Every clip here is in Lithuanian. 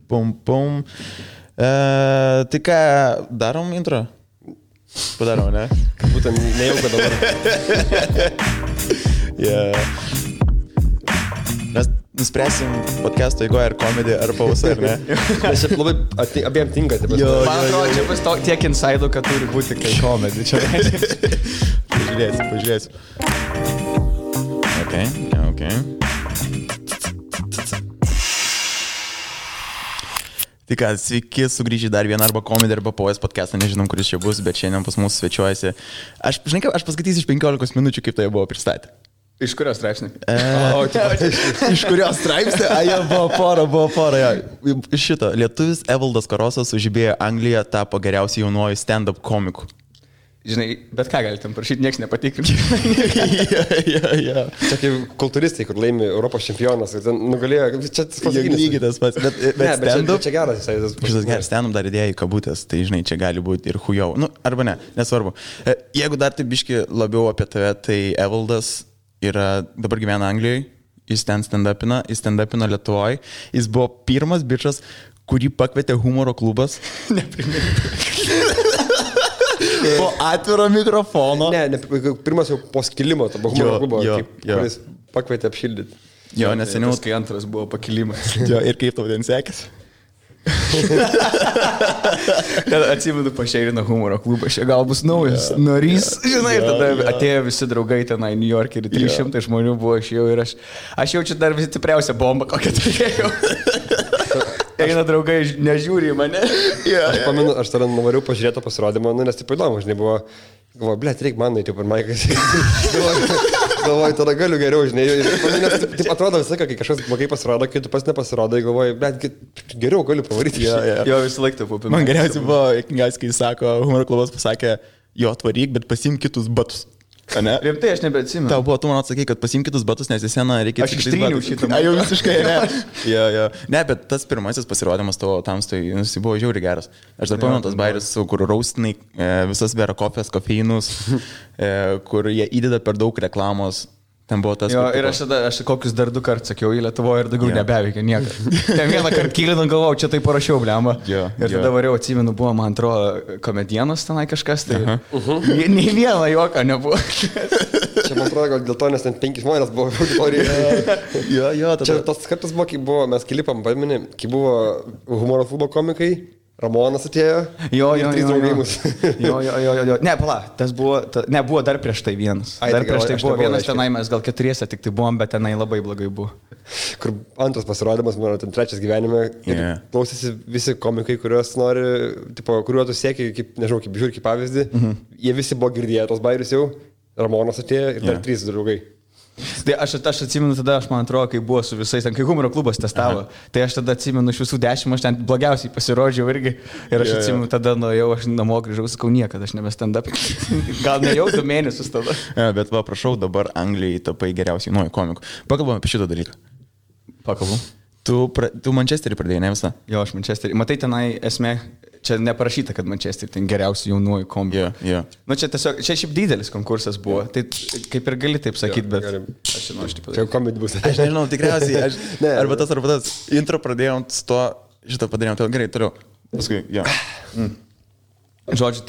Pum. Tai ką, darom intro? Padarom, ne? Būtent nejauka dabar. Mes nuspręsim podcast'o eigoje ar komedį, ar pausą, ar ne? Nes šiaip labai abiem tinka. Man atrodo, čia bus tiek inside'ų, kad turi būti kai komedį. Pažiūrėsiu. Ok. Tai ką, sveiki, sugrįžę dar vieną arba komedį, arba POS podcastą, nežinom, kuris čia bus, bet šiandien pas mus svečiuojasi. Aš paskaitysiu iš 15 minučių, kaip tai buvo pristatę. Iš kurios straipsnį? Iš kurios straipsnį? Buvo pora. Šito, lietuvis Evaldas Karosas sužibėjo Angliją, tapo geriausiu jaunuoju stand-up komiku. Žinai, bet ką galite parašyti, nieks nepatikrinti. Ja. Čia kaip kultūristai, kur laimi Europos čempionas ir ten nugalėjo, čia lygiai tas pats, bet stand-up. Čia geras, šitas geras stand-up dar idėja į kabutės, tai žinai, čia gali būti ir hujau. Nu, arba ne, nesvarbu. Jeigu dar tai biški labiau apie tave, tai Evaldas yra, dabar gyvena Anglijoje, jis ten stand-upina Lietuvoje, jis buvo pirmas bičas, kurį pakvietė humoro klubas. Po atviro mikrofono. Ne, pirmas jau po skilimo, to humoro klubo, kuris pakvietė apšildyti. Jo, nes seniau. Kai antras buvo pakilimas. Jo, ir kaip tau ten sekėsi? Atsimenu, pašeirino humoro klubą, čia gal bus naujas narys. Žinai, ir tada atėjo visi draugai tenai New York ir 300 žmonių buvo ir aš jaučiu dar visi stipriausią bombą, kokią turėjau. Eina draugai, nežiūri į mane. Aš pamenu, aš tada nuvariau pažiūrėtą pasirodymą, nes taip įdomu, žinai, galvoju, blėt, reikia man eiti per maiką. Galvoju, tada galiu geriau, žinai. Nes taip atrodo visą laiką, kai kažkas blogai pasirodo, kai tu pas nepasirodai, galvoju, blėt, geriau galiu pavaryti. Jo, visą laiką taip buvo. Man geriausiai buvo, kai sako, humoro klubas pasakė, jo, atvaryk, bet pasimk kitus batus. Rimtai, aš nebeatsimenu. Tau buvo, tu man atsakai, kad pasimk kitus batus, nes į seną reikia... Aš ištryniau šitą. Jau visiškai, ne. Jo. Ne, bet tas pirmasis pasirodymas tavo tamstoj, jis buvo žiauriai geras. Aš dar pamenu tas bairis, kur raustinai visas vera kofės, kofeinus, kur jie įdeda per daug reklamos. Ten buvo tas... Jo, ir aš kokius dar 2 kartus sakiau į Lietuvoje ir daugiau nebeveikia niekas. Ten vieną kartą kylinant galvau, čia tai parašiau, blemba. Ir tada variau, atsimenu, buvo, man atrodo, komedienos tenai kažkas, tai nei vieno juoką nebuvo. Čia man atrodo, gal dėl to, nes ten 5 žmonės buvo auditorijoje. Jo, tada... Čia tas kartas buvo, kai buvo, mes klipam, pameni, kai buvo humoro klubo komikai. Ramonas atėjo. Jo. Jo. Ne, pala, tas buvo, buvo dar prieš tai vienas. Dar prieš tai buvo vienas tenai, mes gal 4 tik tai buvom, bet tenai labai blogai buvo. Kur antras pasirodymas, mano ten 3 gyvenime, klausėsi visi komikai, kuriuos nori, tipo, kuriuo tu sieki, kaip, nežinau, kaip žiūri, kaip pavyzdį, jie visi buvo girdėję tos bairius jau, Ramonas atėjo ir dar 3 draugai. Tai aš atsimenu tada, man atrodo, kai buvo su visais, ten kai humoro klubas testavo, tai aš tada atsimenu iš visų 10, aš ten blogiausiai pasirodžiau irgi ir aš atsimenu tada nuėjau, aš namo grįžau, sakau, niekada aš nebe stand-up. Gal ne jau 2 mėnesius tada. Bet va, prašau, dabar Anglijai tapai geriausiai nuoju komiku. Pakalbam apie šitą dalyką. Pakalbam. Tu Manchesterį pradėjai, ne visą? Jo, aš Manchesterį. Matai, tenai esmė, čia neparašyta, kad Manchesterį ten geriausių jaunuoju komiku. Jo. Nu, čia tiesiog, čia šiaip didelis konkursas buvo, tai kaip ir gali taip sakyti, bet aš žinau, aš taip čia komedija bus. Aš nežinau, tikriausiai, arba tas. Intro pradėjom su to, šitą padarėjom, tai gerai, toliau. Paskui, jo. Žodžiu,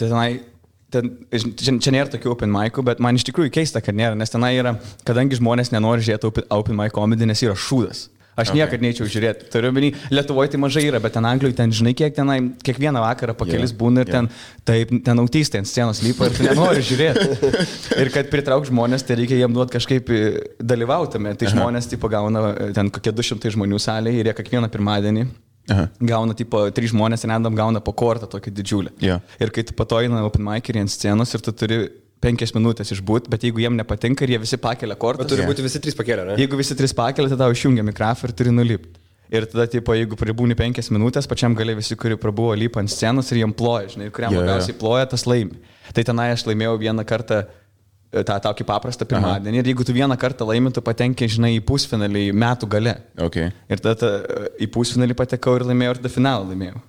čia nėra tokių open mic'ų, bet man iš tikrųjų keista, kad nėra, nes tenai yra, kadangi žmonės nenori žiūrėti open mic komedį, nes yra šūdas. Aš niekad neičiau žiūrėti. Turiu omeny, Lietuvoje tai mažai yra, bet ten Anglijoje ten žinai, kiek tenai kiekvieną vakarą po kelis būna ir ten autistai ant scenos lipa ir tu nenori žiūrėti. Ir kad pritrauk žmonės, tai reikia jiem duoti kažkaip dalyvautame. Tai žmonės tipo gauna ten kokie 200 žmonių salėje ir jie kiekvieną pirmadienį gauna tipo 3 žmonės random gauna po kortą tokį didžiulį. Ir kai tu patoina open mic'erį ant scenos ir tu turi 5 minutės išbūt, bet jeigu jiem nepatinka ir jie visi pakelia kortas. Bet turi būti visi 3 pakelia, ne? Jeigu visi 3 pakelia, tada išjungia mikrofą ir turi nulipti. Ir tada, tipo, jeigu pribūni 5 minutės, pačiam gale visi, kurie prabuvo lypa ant scenos ir jiem ploja, žinai, ir kuriam labiausiai ploja, tas laimi. Tai tenai aš laimėjau vieną kartą tą tokį paprastą pirmadienį ir jeigu tu vieną kartą laimi, tu patenki, žinai, į pusfinalį metų gale. Ir tada į pusfinalį patekau ir laimėjau ir tada finalą laimėjau.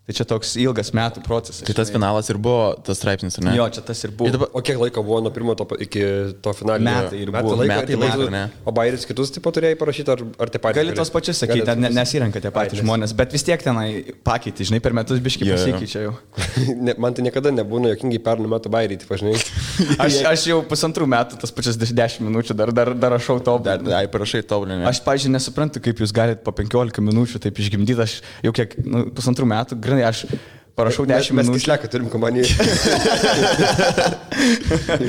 Tai čia toks ilgas metų procesas. Tai tas finalas ir buvo tas straipsnis, ar ne? Jo, čia tas ir buvo. O kiek laiko buvo nuo pirmo iki to finalinio? Metai ir buvo. Metai, ne? O bairis kitus taip pat turėjai parašyti, ar tie patys? Gali tos pačius sakyti, nesirenka tie patys žmonės, bet vis tiek tenai pakeitė, žinai, per metus biškai pasikeičia jau. Man tai niekada nebūna jokingai pernų metų bairį, taip žinai. Aš jau 1,5 metų tas pačias 10 minučių dar rašau tobulinį. Ai, parašai tobulinį. Aš, pavyzdžiui, nesuprantu, kaip jūs galite po 15 minučių taip išgimdyti, aš jau kiek, 1,5 metų, grinai, aš parašau 10 minučių. Mes kišleką turim kompaniją.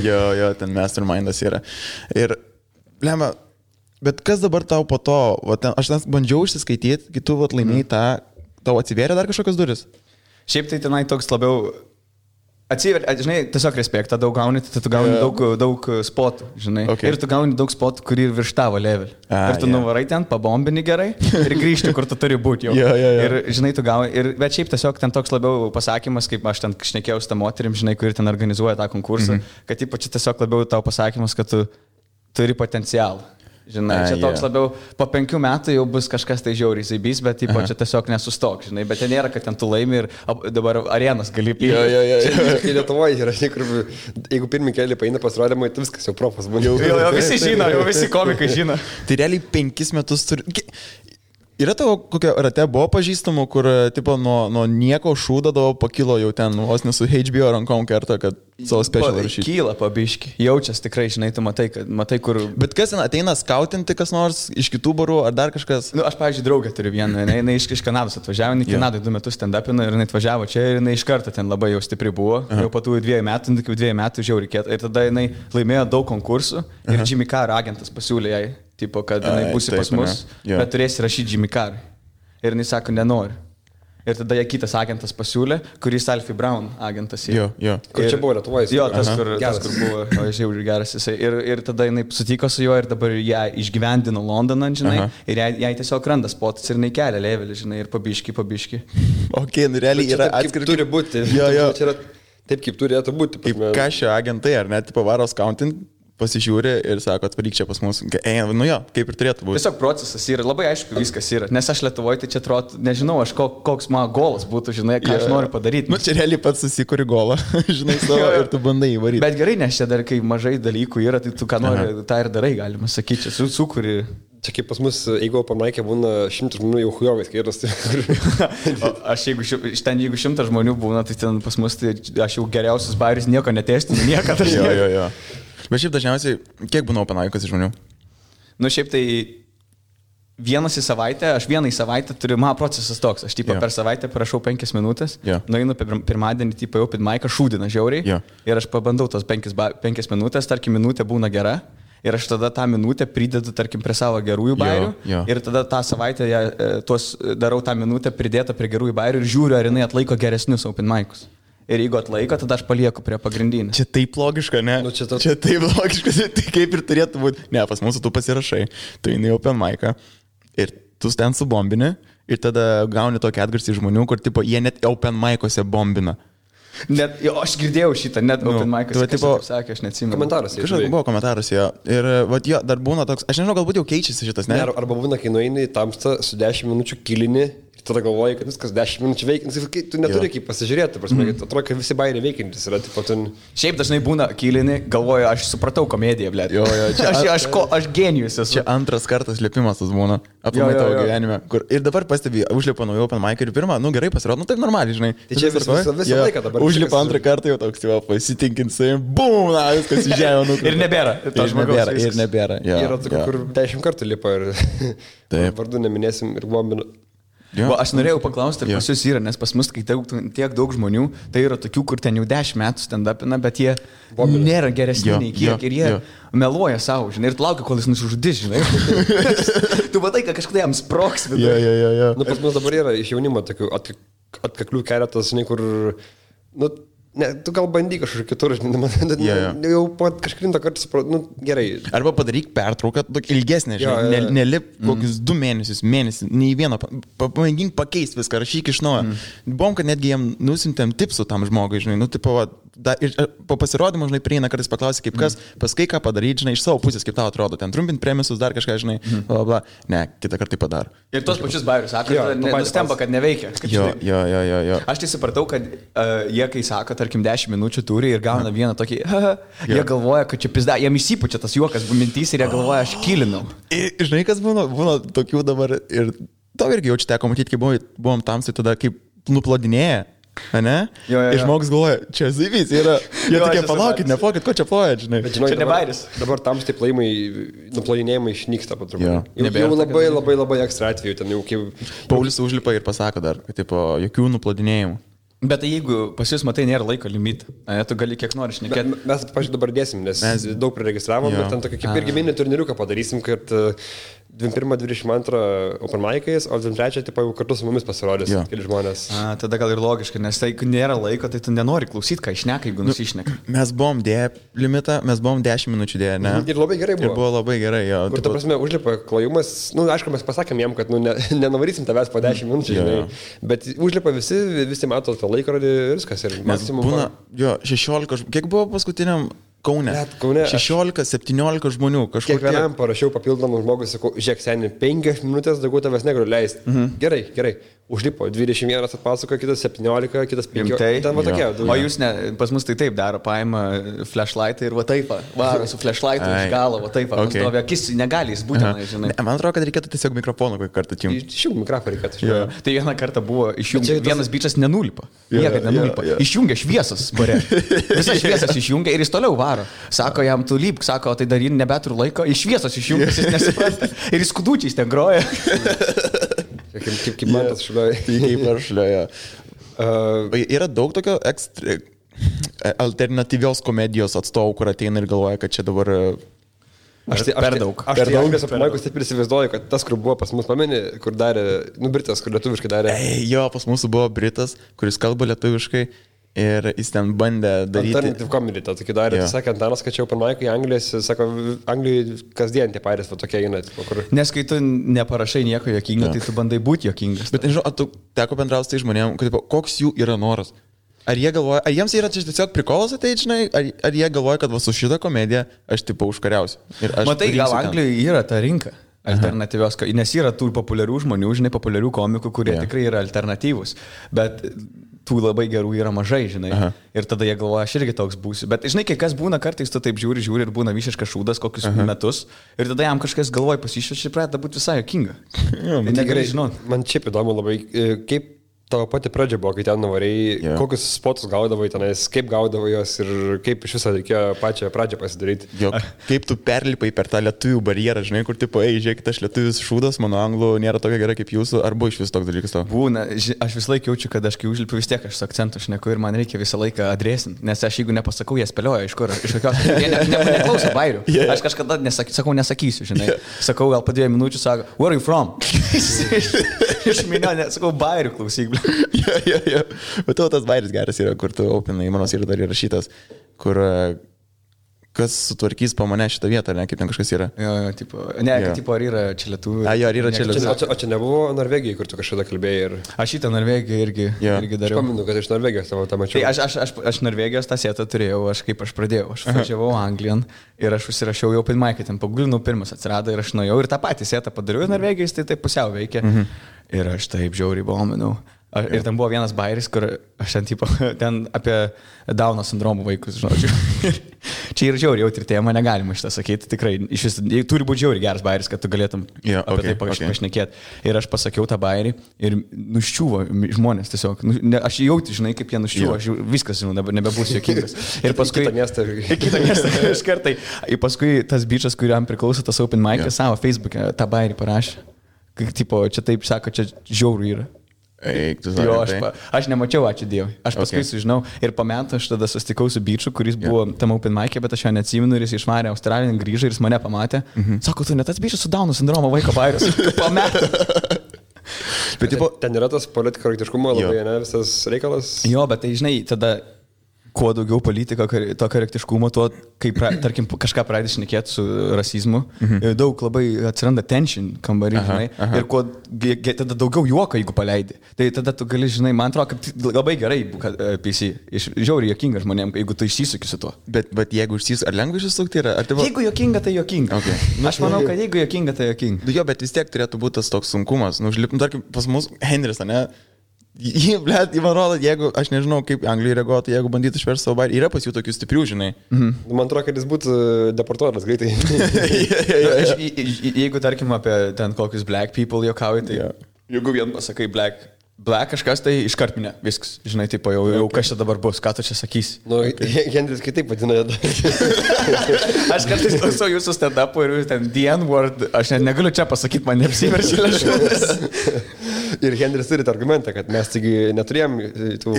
jo, ten mastermindas yra. Ir, lemba, bet kas dabar tau po to, aš ten bandžiau išsiskaityti, kai tu laimėjai tą, tau atsivėrė dar kažkokios duris? Šiaip tai tenai toks labiau atsiveria, žinai, tiesiog respektą daug gauni, tai tu gauni daug spotų, žinai. Okay. Ir tu gauni daug spotų, kurį virš tavo level. Ir tu nuvarai ten, pabombini gerai ir grįžti, kur tu turi būti jau. Ir, žinai, tu gauni. Bet šiaip tiesiog ten toks labiau pasakymas, kaip aš ten šnekėjau su tą moterim, žinai, kuri ten organizuoja tą konkursą, kad ypač tiesiog labiau tau pasakymas, kad tu turi potencialą. Žinai, čia toks labiau, po 5 metų jau bus kažkas tai žiauriai zaibys, bet čia tiesiog nesustok, žinai, bet ten nėra, kad ten tu laimi ir dabar arenas gali pildyti. Kai Lietuvoje yra, žinai, kur jeigu pirmį kelią paina pasirodymą, tai viskas jau profas būna. Jo, visi žino, jau visi komikai žino. Tai realiai 5 metus turi... Yra tavo kokia rate buvo pažįstamų, kur tipo nuo nieko šūdavo pakilo jau ten, vos nesu HBO rankom kerta, kad savo special rašyti. Kyla pabiški, jaučias tikrai, žinai, tu matai kur... Bet kas ten ateina skautinti kas nors iš kitų barų ar dar kažkas? Nu, aš, pavyzdžiui, draugę turiu vieną, jinai iš Kanados atvažiavo, jinai Kanadoje 2 metus stand-upino ir jinai atvažiavo čia ir jinai iš karto ten labai jau stipri buvo, jau po tų 2 metų, iki 2 metų žiauriai reikėtų ir tada jinai laimėjo daug konkursų ir Jimmy Carr agentas pasiūlė jai. Tipo, kad jinai būsi pas mus, bet turėsi rašyti Jimmy Carr. Ir jinai sako, nenori. Ir tada jai kitas agentas pasiūlė, kuris Alfie Brown agentas. Jo. Kur čia buvo Lietuvoje? Jo, tas, kur buvo, žiauriai geras jisai. Ir tada jinai sutiko su juo ir dabar ją išgyvendino Londoną, žinai. Ir jai tiesiog randa spotas ir jinai kelia levelį, žinai, ir pabiški. Ok, nu realiai yra atskiri. Turi būti. Jo. Čia yra taip, kaip turėtų būti. Kaip kažio agentai, ar net pavaros counting. Pasižiūri ir sako, atvaryk čia pas mus. Nu jo, kaip ir turėtų būti. Tiesiog procesas yra, labai aišku viskas yra. Nes aš Lietuvoje, tai čia atrodo, nežinau, aš koks mano golas būtų, žinai, ką aš noriu padaryti. Nu čia realiai pats susikuri golą, žinai, savo ir tu bandai įvaryti. Bet gerai, nes čia dar kai mažai dalykų yra, tai tu ką nori, tą ir darai, galima sakyti, čia sukuri. Čia kaip pas mus, jeigu pamaikė būna 100 žmonių jau hujovais, kai yra jeigu 100 žmonių būna, tai ten pas mus, tai aš jau geriausias bairis nieko netestinu, niekada. Jo. Bet šiaip dažniausiai, kiek būna open mic'as žmonių? Nu šiaip tai vienas į savaitę, aš vieną į savaitę turiu, mano procesas toks, aš per savaitę parašau 5 minutės, nueinu pirmadienį į open mic'ą, šūdina žiauriai ir aš pabandau tos 5 minutės, tarkim minutė būna gera. Ir aš tada tą minutę pridedu, tarkim, prie savo gerųjų bairių. Ir tada tą savaitę darau tą minutę pridėtą prie gerųjų bairių ir žiūriu, ar jinai atlaiko geresnius open mic'us. Ir jeigu atlaiko, tada aš palieku prie pagrindinį. Čia taip logiška, ne? Nu, čia taip logiška, tai kaip ir turėtų būti. Ne, pas mūsų tu pasirašai, tu eini open mic'ą ir tu ten subombini ir tada gauni tokį atgarsį žmonių, kur tipo, jie net open mic'ose bombina. Net, jo, aš girdėjau šitą, net open mic'ose, kas sakė, aš neatsimenu. Komentaruose. Kažkas buvo komentaruose, jo. Ir vat, jo, dar būna toks, aš nežinau, galbūt jau keičiasi šitas, ne? Arba būna, kai nueini į tamstą su 10 minučių kilini. Tada galvoji, kad viskas 10 minučių veikiantis, tu neturi kaip pasižiūrėti, prasme, atrodo, kad visi bairiai veikiantis yra. Šiaip dažnai būna kilini, galvoju, aš supratau komediją, blėt. Jo, aš genijus esu. Čia antras kartas lipimas tas būna, aplamai tavo gyvenime. Ir dabar pastebi, užlipa naujo open mic ir pirmą, nu gerai pasirodo, nu taip normaliai, žinai. Tai čia visą laiką dabar. Užlipa antrą kartą jau toks, jau pasitinkint savim, bum, viskas į žemę. Ir nebėra. Ir nebėra. Yra tokių, kur 10 kartų lipa ir vardu neminėsim ir bombinu. Aš norėjau paklausti, ar pas jūs yra, nes pas mus, kai tiek daug žmonių, tai yra tokių, kur ten jau 10 metų stand-upina, bet jie nėra geresni nei kiek ir jie meluoja savo, žinai, ir tu laukia, kol jis nusižudys, žinai. Tu matai, kad kažkada jam sproks. Jo. Nu, pas mus dabar yra iš jaunimo tokių atkaklių keletas, žinai, kur... Nu, ne, tu gal bandyk kažkur kitur, žinai, jau po kažkurintą kartą supratau, nu gerai. Arba padaryk pertrauką, ilgesnė, žinai, nelip kokius 2 mėnesius, nei vieną, pamėgink pakeisti viską, rašyk iš naujo. Buvom, kad netgi jiem nusintėm tipsų tam žmogui, žinai, nu, tipo, ir po pasirodymo, žinai, prieina kartais paklausai, kaip kas, paskai ką padaryti, žinai, iš savo pusės, kaip tau atrodo, ten trumpint premisus, dar kažką, žinai, bla, bla. Ne, kitą kartą tai padaro. Ir tos pačius bairius sako, nustemba, kad neveikia. Jo. Aš tai supratau, kad jie, kai sako, tarkim, 10 minučių turi ir gauna vieną tokį, jie galvoja, kad čia pizda, jiem įsipučia tas juokas mintys ir jie galvoja, aš kilinau. Ir žinai, kas būna tokių dabar ir tau irgi jau čia teko matyti, kai buvom tamsai tada, kaip nuplodinėja. Ne? Jo. Ir žmogus galvoja, čia zivys yra. Jie tokie, palaukit, nepokit, ko čia plojat, žinai. Bet žinai, čia ne bairis. Dabar tamstai plojimai, nuplodinėjimai išnyksta po truputį. Jo. Jau labai ekstra atveju, ten jau kaip... Paulius užlipa ir pasako dar, kad tipo, jokių nuplodinėjimų. Bet tai jeigu pas jūs matai, nėra laiko limitą, tu gali kiek nori šnekėti. Mes, pažiūrėjau, dabar dėsim, nes mes daug priregistravom, bet ten tokį kaip irgi mini turniriuką padarysim, kad 21-22 open mic'ais, o 23 tipo jau kartu su mumis pasirodys keli žmonės. Tada gal ir logiška, nes tai nėra laiko, tai tu nenori klausyti, ką išneka, jeigu nusišneka. Mes buvom dėję limitą, mes buvom 10 minučių dėję, ne? Ir labai gerai buvo. Ir buvo labai gerai, jo. Kur, ta prasme, užlipa klojimas, aišku, mes pasakėm jam, kad nenavarysim tavęs po 10 minučių, žinai, bet užlipa visi mato tą laikrodį ir viskas. Ir būna, 16, kiek buvo paskutiniam Kaune? 16-17 žmonių kažkur. Kiekvienam parašiau papildomų žmogų, sakau, žiūrėk, seniai, 5 minutės daugiau tavęs negaliu leisti. Gerai. Užlipo, 21 atpasakoja, kitas 17, kitas 15. Ten va tokie. O jūs ne, pas mus tai taip daro, paima flashlightą ir va taip, varo su flashlightu iš galo, va taip, stovi akis, negali jis būtinai, žinai. Man atrodo, kad reikėtų tiesiog mikrofoną kokį kartą atjungti. Išjungti mikrofoną reikėtų. Tai vieną kartą buvo išjungti, vienas bičas nenulipa. Niekad nenulipa. Išjungia šviesas, bare. Visas šviesas išjungia ir jis toliau varo. Sako jam, tu lypk, sako, tai dar nebeturiu laiko, iš šviesos išjungia, jis nesupranta. Ir jis skudučiais ten groja. Kaip man tas šliuoja. Kaip aš šliuoja. Yra daug tokio alternatyvios komedijos atstovų, kur ateina ir galvoja, kad čia dabar... Per daug. Aš tai Anglijos apmaikus taip ir įsivaizduoju, kad tas, kur buvo pas mus pameni, kur darė, Britas, kur lietuviškai darė. Jo, pas mūsų buvo Britas, kuris kalba lietuviškai. Ir jis ten bandė daryti... Alternative comedy, tą tokį darė. Tai sakė, Antanas, kad čia open mic'ai Anglijos, sako, Anglijai kasdien tie pairės va tokie eina. Kur... Nes kai tu neparašai nieko jokingo, tai tu bandai būti jokingas. Bet nežinau, tu teko bendrauti tai žmonėm, kad, koks jų yra noras? Ar jie galvoja, ar jiems yra tiesiog prikolas ateiti, žinai, ar jie galvoja, kad va su šitą komediją aš tipo užkariausiu? Matai, gal Anglijoje yra ta rinka alternatyvios, nes yra tų populiarių žmonių, žinai, populiarių komikų, kurie tikrai yra alternatyvūs. Bet tų labai gerų yra mažai, žinai. Ir tada jie galvoja, aš irgi toks būsiu. Bet žinai, kai kas būna, kartais tu taip žiūri ir būna visiškas šūdas kokius metus. Ir tada jam kažkas galvoja pasišviečia ir pradeda būti visai jokinga. Tai negerai žinot. Man šiaip įdomu labai, kaip tavo pati pradžia buvo, kai ten nuvarėjai, kokius spotus gaudavai tenais, kaip gaudavai jos ir kaip iš viso reikėjo pačią pradžią pasidaryti. Jo, kaip tu perlipai per tą lietuvių barjerą, žinai, kur tipo, žiūrėkit, aš lietuvis šūdas, mano anglų nėra tokia gera kaip jūsų, ar buvo iš vis toks dalykas tavo? Būna, aš vis laik jaučiu, kad aš kai užlipiu vis tiek aš su akcentu šneku ir man reikia visą laiką adresinti, nes aš jeigu nepasakau, jie spėlioja iš kur, iš kokios, jie neklauso bairių. Aš kažkada nesakysiu, žinai. Sakau, gal po 2 minučių, sako, where are you from? Iš minio, sakau, bairių klausyk. Jo. Bet tavo tas bairis geras yra, kur tu opinai, manos yra dar įrašytas, kur kas sutvarkys po mane šitą vietą, ne, kaip ten kažkas yra. Jo, tipo, ne, tipo, ar yra čia lietuvių. Jo, ar yra čia lietuvių. O čia nebuvo Norvegijai, kur tu kažkada kalbėjai ir... Aš šitą Norvegiją irgi dariau. Aš paminu, kad iš Norvegijos tavo tą mačiau. Tai aš Norvegijos tą setą turėjau, kaip aš pradėjau. Aš važiavau Anglijan ir aš užsirašiau jau open mic'ą, ten pagulinu pirmas atsirado ir aš nuėjau ir tą patį setą padariau Norvegijos, tai taip pusiau veikia. Ir aš taip žiauriai bominau. Ir ten buvo vienas bairis, kur aš ten apie Dauno sindromo vaikus, žodžiu. Čia yra žiauriai jautri tema, negalima šitą sakyti, tikrai. Turi būti žiauriai geras bairis, kad tu galėtum apie tai pašnekėti. Ir aš pasakiau tą bairį ir nuščiuvo žmonės tiesiog. Aš jauti, žinai, kaip jie nuščiuvo, aš viskas, žinau, nebebūsiu jokingas. Ir paskui... Kitą miestą iš kartai. Ir paskui tas bičas, kuriam priklauso tas open mic'as, savo Facebook'e tą bairį parašė. Tipo, čia taip sako, čia žiauriai yra. Jo, aš nemačiau, ačiū Dievui. Aš paskui sužinau ir po metų aš tada susitikau su biču, kuris buvo tam open mic'e, bet aš jo neatsimenu ir jis išvarė Australiją, grįžo ir jis mane pamatė. Sako, tu ne tas bičas su Dauno sindromo vaiko bairis. Po metų. Bet ten yra tas politkorektiškumo labai, ne, visas reikalas. Jo, bet tai žinai, tada kuo daugiau politika, to korektiškumo, tuo, kai, tarkim, kažką pradedi šnekėti su rasizmu, daug labai atsiranda tension kambarį, žinai, ir kuo tada daugiau juoko, jeigu paleidi. Tai tada tu gali, žinai, man atrodo, kad labai gerai, kad PC, žiauriai jokinga žmonėm, jeigu tu išsisuki su tuo. Bet jeigu išsisuki, ar lengva išsisukti yra? Jeigu jokinga, tai jokinga. Okay. Aš manau, kad jeigu jokinga, tai jokinga. Jo, bet vis tiek turėtų būti tas toks sunkumas. Tarkim, pas mus Henris, ne? Man rodo, jeigu, aš nežinau, kaip Anglijoje reaguotų, jeigu bandytų išversti savo bairį, yra pas jų tokių stiprių, žinai. Man atrodo, kad jis būtų deportuotas greitai. Jeigu, tarkim, apie ten kokius black people juokauji, tai jeigu vien pasakai black kažkas, tai iškart minė, viskas, žinai, tipo, jau kas čia dabar bus, ką tu čia sakysi. Henris kitaip vadina. Aš kartais klausau jūsų stand-upų ir ten the N-word, aš net negaliu čia pasakyti, man neapsiverčia lėšus. Ir Henris turi argumentą, kad mes taigi neturėjom tų...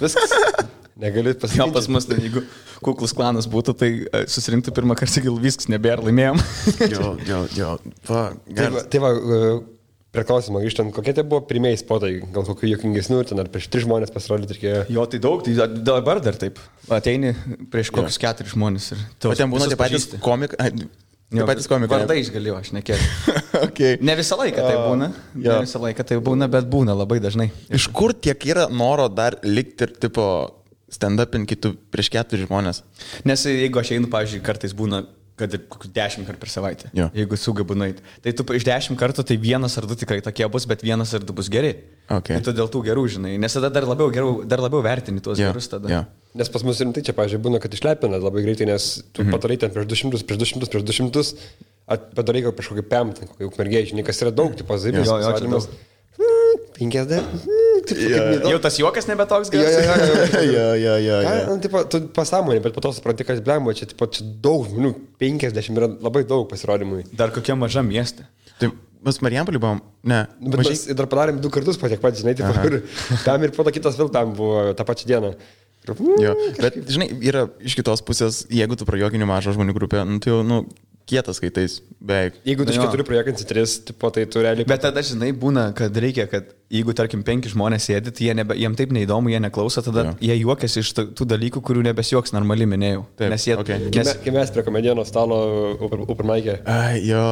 Viskas. Negaliu pasakyti. Gal pas mus, ten, jeigu kuklus klanas būtų, tai susirinktų pirmą kartą, gal viskas nebėra, laimėjom. Jo. Tai va, prie klausimą grįžtant, kokie tai buvo pirmieji spotai, gal kokių juokingesnių, ten ar prieš 3 žmonės pasirodyti reikėjo? Jo, tai daug, tai dabar dar taip. Ateini prieš kokius 4 žmonės. O ten būna tie patys komikai. Tie patys komikai. Vardais galėjau, aš nekėliau. Okay. Ne visą laiką tai būna. Ne visą laiką tai būna, bet būna labai dažnai. Iš kur tiek yra noro dar likti ir tipo stand-upin kitų prieš 4 žmonės? Nes jeigu aš einu, pavyzdžiui, kartais būna, kad ir 10 kartų per savaitę, jeigu sugebu nueiti. Tai tu iš 10 kartų, tai 1 ar 2 tikrai tokie bus, bet 1 ar 2 bus geri. Okay. Tai tu dėl tų gerų, žinai, nes tada dar labiau vertini tuos gerus tada. Nes pas mus rimtai čia, pavyzdžiui, būna, kad išlepina labai greitai, nes tu padarai ten prieš 200, padarai gal prieš kokį pemtą, kokį ukmergėjį, žinai, kas yra daug, tipo zaibės. 50. Jau tas juokas nebe toks geras. Jo. Tu pasąmonė, bet po to supranti, kad blemba, čia daug žmonių, 50 yra labai daug pasirodymui. Dar kokia maža miestė. Tai mes Marijampolį buvom, ne. Bet mes dar padarėm 2 kartus po tiek pat, žinai, ir tam ir po to kitas vėl tam buvo tą pačią dieną. Jo, bet, žinai, yra iš kitos pusės, jeigu tu prajuokini mažą žmonių grupę, nu, tai jau, kietas skaitais, beveik. Jeigu tu iš 4 prajuokinsi 3, tipo, tai tu realiai... Bet tada, žinai, būna, kad reikia, kad jeigu, tarkim, 5 žmonės sėdi, tai jiem taip neįdomu, jie neklauso, tada jie juokiasi iš tų dalykų, kurių nebesijuoks normaliai minėjau. Taip, nes jie... Kai mes prie komedijos stalo Upermaikė. Jo,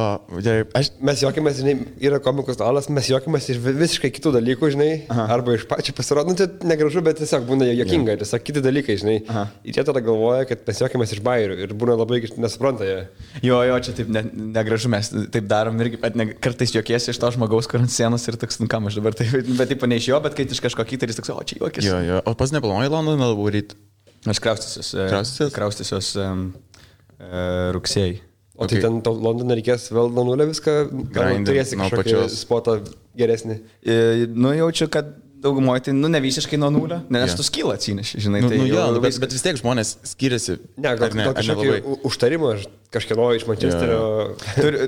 mes juokimės, žinai, yra komikų stalas, mes juokimės iš visiškai kitų dalykų, žinai, arba iš pačių pasirodų, tai negražu, bet tiesiog būna juokinga, tiesiog kiti dalykai, žinai. Ir jie tada galvoja, kad mes juokimės iš bairių ir būna labai nesupranta jie. Jo, čia taip negražu, mes taip darom irgi, bet kartais juokiesi iš to žmogaus, kur ant sienos ir toks, nu kam aš dabar, bet taip ne iš jo, bet kai iš kažko kitą ir jis toks, o čia juokis. Jo, o pas neplanuoji Londoną varyti? Aš kraustysiuos rugsėjai. O tai ten Londoną reikės vėl nuo nulio viską, gal turėsi kažkokį spotą geresnį? Nu jaučiu, kad daugumoje tai, ne visiškai nuo nulio, nes tu skylą atsineši, žinai. Bet vis tiek žmonės skiriasi. Ne, gal kažkokį užtarimą kažkieno iš Mančesterio.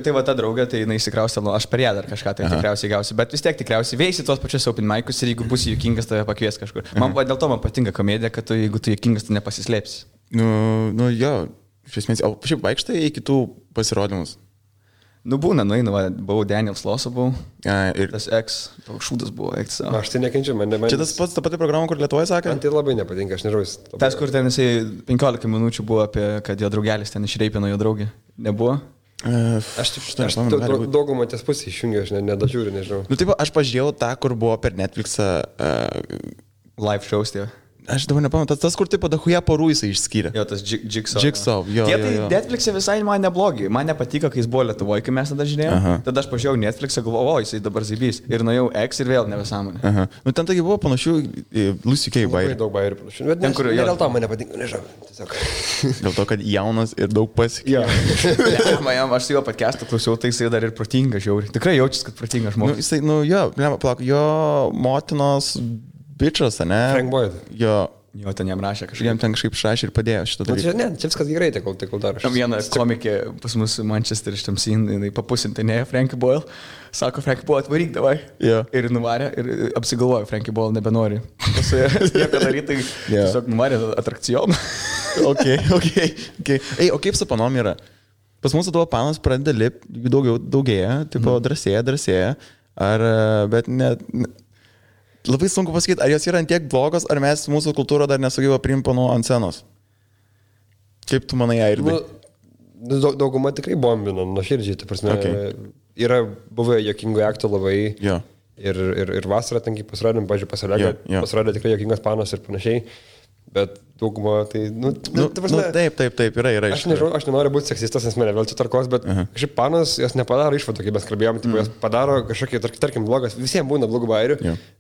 Tai va ta draugė, tai jinai įsikraustė, aš per ją dar kažką tai tikriausiai gausiu, bet vis tiek tikriausiai veisi tuos pačius open mic'us ir jeigu būsi juokingas, tave pakvies kažkur. Dėl to man patinka komedija, kad jeigu tu juokingas, tu nepasislėpsi. Nu jo, iš esmės, o šiaip vaikštai į kitų pasirodymus? Nu būna, nueinu, buvau Daniel Sloso, buvau. Ir tas X, toks šūdas buvo X. Aš tai nekenčiu, man. Čia tas pats, ta pati programa, kur Lietuvoje sakė? Man tai labai nepatinka, aš nežinau. Tas, kur ten jisai 15 minučių buvo apie, kad jo draugelis ten išreipino jo draugį. Nebuvo? Aš daugumą ties pusę išjungiu, aš nedažiūriu, nežinau. Nu taip, aš pažiūrėjau tą, kur buvo per Netflixą live shows, tie. Aš dabar nepamenu, tas kur taip padahuja porų jisai išskyrė. Jo, tas Jigsaw. Jigsaw, jo. Tie tai Netflix'e visai man neblogi. Man nepatiko, kai jis buvo Lietuvoje, kai mes tada žiūrėjome. Tada aš pažiūrėjau Netflix'e, galvojau, jisai dabar zybys. Ir nuėjau X ir vėl nebesąmonė. Nu ten taigi buvo panašių Lucy K. bairių. Daug bairių panašių. Bet ten, kur dėl to man nepatinka, nežinau. Tiesiog. Dėl to, kad jaunas ir daug pasikė. Aš su juo podcast'ą klausiau, tai jisai dar ir protingas žiauri. Tikrai jaučiasi, kad protingas žmogus. Jo motinos bičas, ne? Frank Boyd. Jo, ten jam rašė kažkaip. Jam ten kažkaip šrašė ir padėjo šitą dalyką. Ne, čia viskas gerai, tai kol daro. Tam viena komikė pas mus Manchester iš tamsin, jinai papusintinėja Frankie Boyle. Sako, Frankie Boyle atvaryk davai. Ir nuvarė ir apsigalvojo, Frankie Boyle nebenori. Nieko daryti, tiesiog nuvarė atrakcijoną. Okay. Ei, o kaip su panom yra? Pas mūsų tavo panas pradeda lipti, daugėja, tipo drąsėja. Bet net... labai sunku pasakyti, ar jos yra tiek blogos, ar mes mūsų kultūrą dar nesugebėjo priimti panų ant scenos. Kaip tu manai, Airdai? Dauguma tikrai bombino, nuoširdžiai, ta prasme. Okay. Yra buvę jokingų aktų labai. Jo. Ir vasarą tankiai pasirodėm, pažiūrėjau, pasirodė, pasirodė tikrai jokingas panos ir panašiai. Bet dauguma tai, prasme, taip, yra. Aš nežinau, aš nenoriu būti seksistas, nes mane vėl čia tarkos, bet kažkaip panos, jos nepadaro išvadų, kaip mes kalbėjom, tipo, jos padaro kažkokį, tarkim, blogas, visiems būna blogų bairių,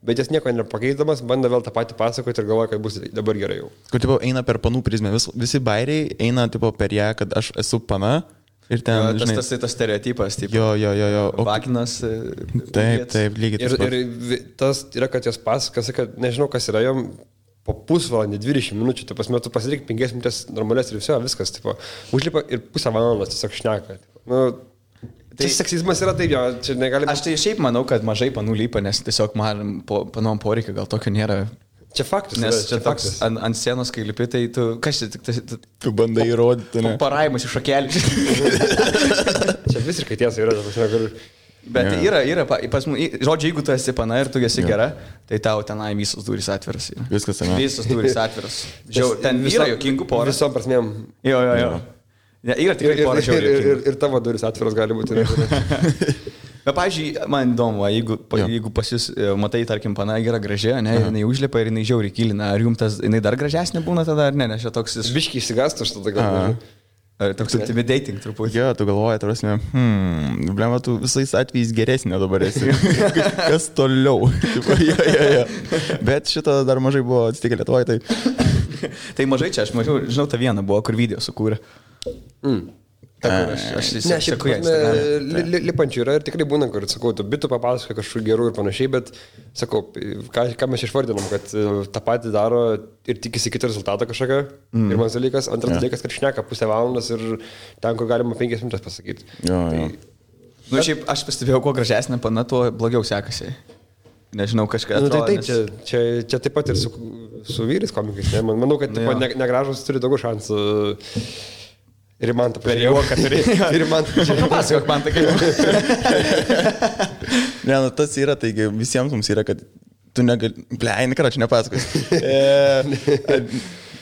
bet jas nieko nepakeisdamas, bando vėl tą patį pasakoti ir galvoja, kad bus dabar gerai jau. Kur, tipo, eina per panų prizmę, visi bairiai eina, tipo, per ją, kad aš esu pana. Ir ten, tas stereotipas, taip. Jo. Vaginas. Taip, lygiai tas pats. Ir tas yra, kad jos pasakas, kad nežinau, kas yra jom. Po pusvalandį, 20 minučių, tu pasidaryk 5 minutės normalės ir viskas, tipo, užlipa ir pusę valandos tiesiog šneka. Tai seksizmas yra taip, jo, čia negalime... Aš tai šiaip manau, kad mažai panų lypa, nes tiesiog man panom poreikio gal tokio nėra. Čia faktas. Nes čia toks ant scenos, kai lipi, tai tu... Kas čia tik... Tu bandai įrodyti, ne? Paraimus iš šakelį. Čia visiškai tiesa yra, Bet yra, pas mus, žodžiu, jeigu tu esi pana ir tu esi gera, tai tau tenai visos durys atviras. Viskas ten. Visos durys atviras. Ten yra jokingų porų. Visom prasmėm. Jo. Yra tikrai porų žiauriai. Ir tavo durys atviras gali būti. Bet, pavyzdžiui, man įdomu, jeigu pas jūs, matai, tarkim, pana yra graži, ne, jinai užlipa ir jinai žiauriai kilina, ar jums tas, jinai dar gražesnė būna tada, ar ne, nes čia toks... Biškiai išsigąstų aš tada gal. Toks intimidating truputį. Jo, tu galvoji, tarsi, blema, tu visais atvejais geresnė dabar esi. Kas toliau? Jo. Bet šito dar mažai buvo atsitikę Lietuvoje, tai... Tai mažai čia, aš mažiau, žinau, tą vieną buvo, kur video sukūrė. Aš seku ją Instagram'e. Lipančių yra ir tikrai būna, kur, sakau, tu bitų papasakoji kažkokių gerų ir panašiai, bet, sakau, ką mes išvardinam, kad tą patį daro ir tikisi kitą rezultatą kažkokią. Pirmas dalykas, antras dalykas, kad šneka pusę valandos ir ten, kur galima 5 minutės pasakyti. Jo. Šiaip aš pastebėjau, kuo gražesnė pana, tuo blogiau sekasi. Nežinau, kažką. Tai taip, čia taip pat ir su vyrais komikais. Ne? Manau, kad negražus turi daugiau šansų. Ir man tą pažiūrėjau, kad turi. Ir man tą pažiūrėjau. Pasakok man tą kaip. Ne, tas yra, taigi visiems mums yra, kad tu negali... Bleini, karoči, nepasakos.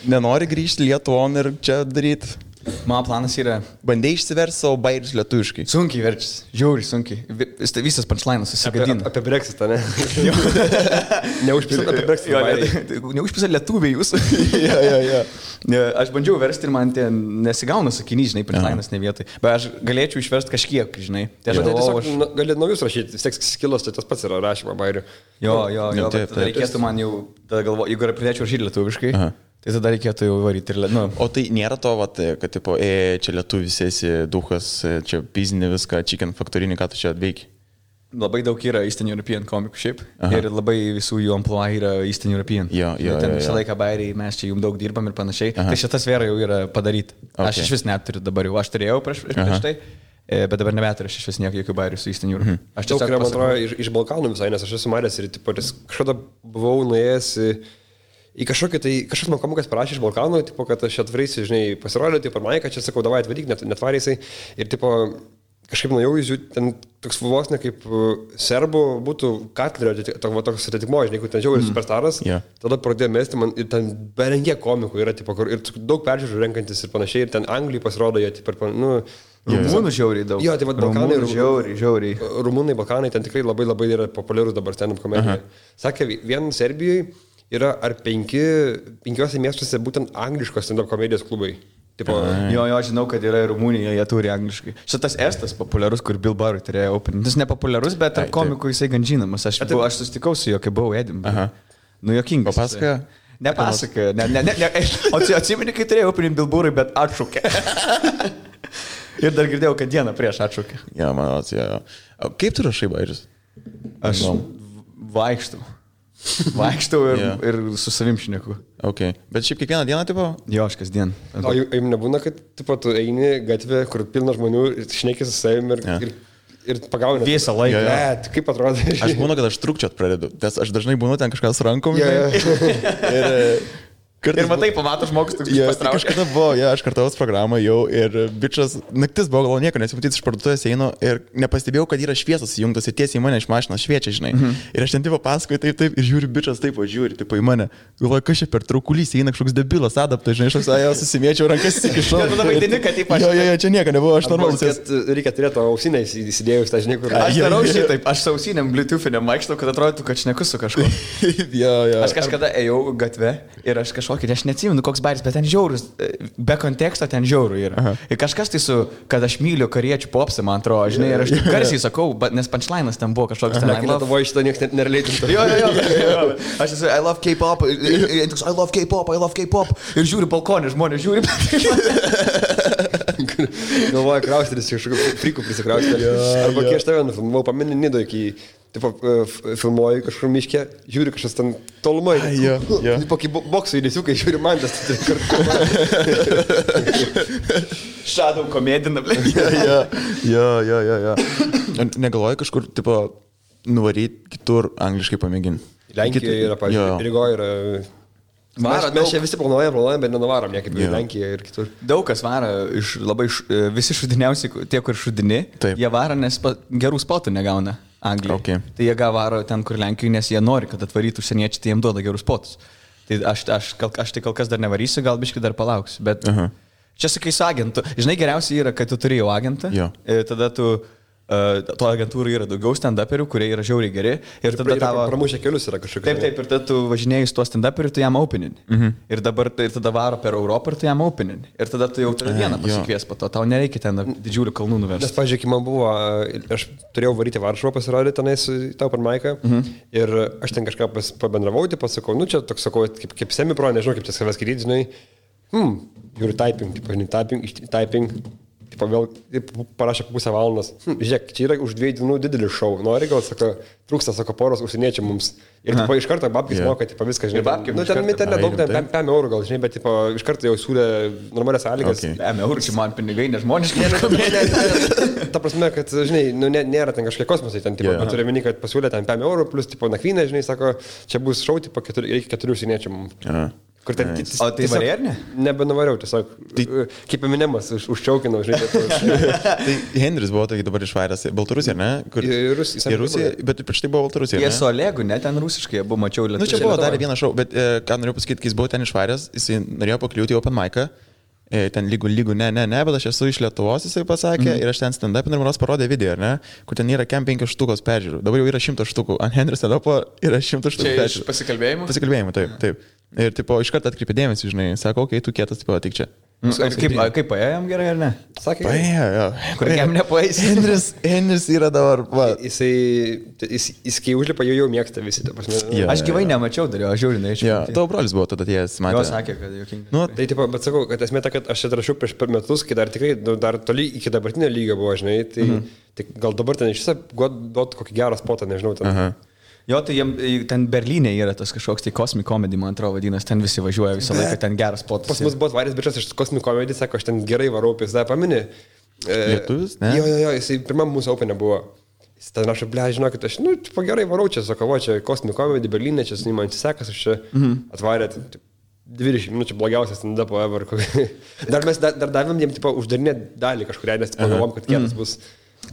Nenori grįžti Lietuvon ir čia daryti. Mano planas yra... Bandai išsiversti savo bairius lietuviškai. Sunkiai verčis. Žiauriai sunkiai. Visas punchlainas susigadina. Apie Brexitą, ne? Neužpisat apie Brexitą. Neužpisat lietuviai jūs. Jo. Aš bandžiau versti ir man nesigauna sakinys, žinai, punchlainas ne vietai. Bet aš galėčiau išversti kažkiek, žinai. Tai tiesiog galėt naujus rašyti. Vis tiek skilos, tai tas pats yra rašymo bairių. Jo. Reikėtų man jau, tada galvoju, jeigu pradėčiau rašyti lietuviškai. Tai tada reikėtų jau varyti ir O tai nėra to, kad tipo, čia lietuvis esi duhas, čia pizinė viską, chicken factorinį, ką tu čia atveiki? Labai daug yra Eastern European komikų šiaip. Ir labai visų jų amplua yra Eastern European. Jo. Ten visą laiką bairiai, mes čia jums daug dirbam ir panašiai. Tai šita sfera jau yra padaryta. Aš iš vis neturiu dabar jau. Aš turėjau prieš tai, bet dabar nebeturiu aš iš vis nieko jokių bairių su Eastern European. Aš tiesiog, man atrodo, iš Balkanų visai, nes aš esu maręs ir kažkada buvau nuėjęs į kažkas man komikas parašė iš Balkanų, tipo, kad aš atvarysiu, žinai, pasirodė, tipo, man, kad čia sakau, davai atvaryk, netvarysiai. Ir, tipo, kažkaip nuėjau, ten toks vos ne kaip serbų būtų Katlerio, toks atitikmo, žinai, kur ten žiauriai superstaras. Tada pradėjo mesti man ir ten berengė komikų yra, tipo, ir daug peržiūrų renkantis ir panašiai. Ir ten Anglijai pasirodo, jie, tipo, Rumunų žiauriai daug. Jo, tai vad Balkanai. Žiauriai. Rumunai, Balkanai, ten tikrai labai labai yra populiarus dabar stand-up komedija. Sakė, vien Serbijoje yra ar 5 miestuose būtent angliškos stand-up komedijos klubai. Tipo, jo, žinau, kad yra Rumunija, jie turi angliškai. Šitas Estas populiarus, kur Bill Burr turėjo opening. Jis nepopuliarus, bet tarp komikų jisai gan žinomas. Aš susitikau su juo, kai buvau Edinburgh. Juokingas. Papasakojo? Nepasakojo. O atsimeni, kai turėjau opening Bill Burr'ui, bet atšaukė. Ir dar girdėjau, kad dieną prieš atšaukė. Jo, man atsijo. Kaip tu rašai bairius? Aš vaikštau ir su savim šneku. Okay. Bet šiaip kiekvieną dieną, tipo? Jo, aš kasdien. O jums nebūna, kad tipo, tu eini gatvė, kur pilna žmonių ir šneki su savim ir pagauni. Visą laiką. Bet kaip atrodo? Aš būnu, kad aš trukčiot pradedu, nes aš dažnai būnu ten kažkas rankom. Ir matai, pamato žmogus, tu kažkada buvo, aš kartavos programą jau ir bičias, naktis buvo, gal nieko nesimatyti iš parduotuvės einu ir nepastebėjau, kad yra šviesas įjungtas ir tiesiai į mane iš mašinos šviečia, žinai. Ir aš ten tipo pasakoju taip ir žiūri bičias taip, žiūri tipo į mane. Galvoju, kas čia per traukulys eina kažkoks debilas, adaptas, žinai, aš jau susimėčiau rankas įkišau. Tada vaidini, kad taip aš. Jo, čia nieko nebuvo, aš normalus. Reikia turėti ausinę įsidėjus, tą žinai, kur. Aš darau šitaip, aš sausiniam Bluetooth'iniam vaikštau, kad atrodytų, kad šneku su kažkuo. Aš kažkada ėjau gatve ir aš kažkokį, aš neatsimenu, koks baris, bet ten žiaurus, be konteksto ten žiaurų yra. Aha. Ir kažkas tai kad aš myliu kariečių popsą, man atrodo, žinai, ir aš garsiai sakau, nes punchline'as ten buvo kažkoks ten. Lietuvoje šitą niekas nereleitintų. Jo. Aš esu, I love K-pop, I love K-pop. Ir žiūri balkonį, žmonės žiūri. Galvoju, kraustytis, kažkokiu frikų prisikraustyti. Arba kai aš tave nufilmavau, pameni Nido iki... Taip, filmuoju kažkur miške, žiūri kažkas ten tolumai. Kokį boksų įdėsiukai, žiūri man tas. Shadow komedina, blė. Jo. Negalvoju kažkur, tipo, nuvaryti kitur angliškai pamėginti. Lenkijoje yra, pažiūrėjau, Rygoje yra... Mes čia visi planuojam, bet nenuvarom niekaip į Lenkiją ir kitur. Daug kas varo visi šudiniausi, tie, kur šudini, jie varo, nes gerų spotų negauna. Anglijai. Okay. Tai jie varo ten, kur Lenkijoje, nes jie nori, kad atvarytų užsieniečiai, tai jiems duoda gerus potus. Tai aš tai kol kas dar nevarysiu, gal biškai dar palauksiu. Bet čia sakai su agentu. Žinai, geriausia yra, kad tu turi jau agentą. Tada tu... To agentūrų yra daugiau stand-uperių, kurie yra žiauriai geri. Ir tada tavo... Pramušę kelius yra kažkokie. Taip, ir tada tu važinėjai su tuo stand-uperiu, tu jam openin. Ir tada varo per Europą ir tu jam openin. Ir tada tu jau turi vieną pasikvies po to. Tau nereikia ten didžiulių kalnų nuvežti. Nes, pažiūrėk, man buvo... Aš turėjau varyti Varšuvą pasirodyti tenais tau per Maiką. Ir aš ten kažką pabendravau, pasakau, nu čia toks, sakau, kaip semipro, nežinau, kaip čia savęs skaityti, žinai. Žiūri typing. Vėl parašė pusę valandos. Žiūrėk, čia yra už 2 dienų didelis šou. Nori gal, trūksta, poros užsieniečių mums. Ir iš karto babkis moka, viską, žinai. Babkis, nu, ten nedaug, 5 eurų gal, žinai, bet iš karto jau siūlė normalias sąlygas. 5 eurų, čia man pinigai nežmoniškai. Ta prasme, kad, žinai, nėra ten kažkokie kosmosai, ten, bet turiu meni, kad pasiūlė ten 5 eurų, plus, nakvynė, žinai, sako, čia bus šou, reikia 4 užsieniečių mums. Kur ten kitis. O tai varė ar ne? Nebenuvariau, tiesiog. Kaip Eminemas, užčiaukinau, žinai. Tai Henris buvo tokį dabar išvairęs. Baltarusija, ne? Į Rusiją, bet prieš tai buvo Baltarusija. Jie su Olegu, ne? Ten rusiškai, buvo mačiau lietuvių. Nu, čia buvo dar vienas šou, bet ką noriu pasakyti, kai jis buvo ten išvairęs, jis norėjo pakliūti į open mic'ą. Ten lygų, ne, bet aš esu iš Lietuvos, jisai pasakė, ir aš ten stand-up ir man parodė video, ne, kur ten yra 5 štukos peržiūrų. Dabar jau yra 100 štukų. Ant Henris stand-upo yra 100 štukų peržiūrų. Pasikalbėjimų? Pasikalbėjimų, taip. Ir tipo, iš karto atkreipė dėmesį, žinai, sako, okei, tu kietas, tipo, tik čia. Kaip paėjom gerai ar ne? Sakė, paėjo, jo. Kur jam nepaeis? Henris yra dabar, va. Jis kai užlipa, jau mėgsta visi, ta prasme. Aš gyvai nemačiau, dariau, aš žiūrinai iš čia. Tavo brolis buvo tada atėjęs, matė. Jo, sakė, kad jokingai. Nu, tai tipo, bet sakau, kad esmė ta, kad aš atrašiau prieš per metus, kai dar tikrai, dar toli iki dabartinio lygio buvo, žinai, tai gal dabar ten iš viso duot kokį gerą spotą, nežinau. Jo, tai ten Berlyne yra tas kažkoks tai Cosmic Comedy, man atrodo, vadinasi, ten visi važiuoja visą laiką, ten geras spotas. Pas mus buvo varės bičias iš Cosmic Comedy, sako, aš ten gerai varau, pizda, pamini. Lietuvis, ne? Jo, jisai pirmam mūsų openė buvo. Jis ten rašo, ble, žinokit, aš, gerai varau čia, sako, čia Cosmic Comedy, Berlyne, čia su man atsisekas, aš čia atvarė 20 minučių blogiausias stand-up ever. Dar mes davėm jiems, uždarinę dalį kažkurią, nes pagalvom, kad kietas bus.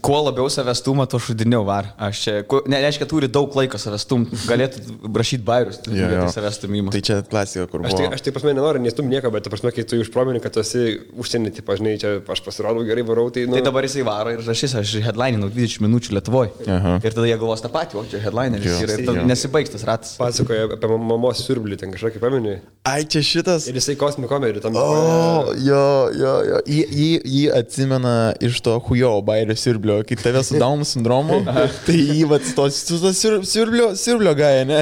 Kuo labiau savęs stumą, to šudiniau var. Aš čia, nereiškia, turi daug laiko savęs stumti, galėtų rašyti bairius, savęs stumimą. Tai čia klasika, kur buvo. Aš tai pas mane nenoriu nestumti nieko, bet pas mane, kai tu užpromini, kad tu esi užsienį, tai pažinai, čia aš pasirodau gerai, varau, tai... Tai dabar jisai varo ir rašys, aš headlininau 20 minučių Lietuvoje. Ir tada jie galvos tą patį, o čia headlineris yra ir nesibaigs tas ratas. Pasakoja apie mamos siurblį, ten kažkokį pamini. Ai, čia šitas. Ir jisai Cosmic Comedy tam. Jo. Jį atsimena iš to hujo bairio siurblio, kai tave su Down sindromu, tai jį su to siurblio gaja, ne?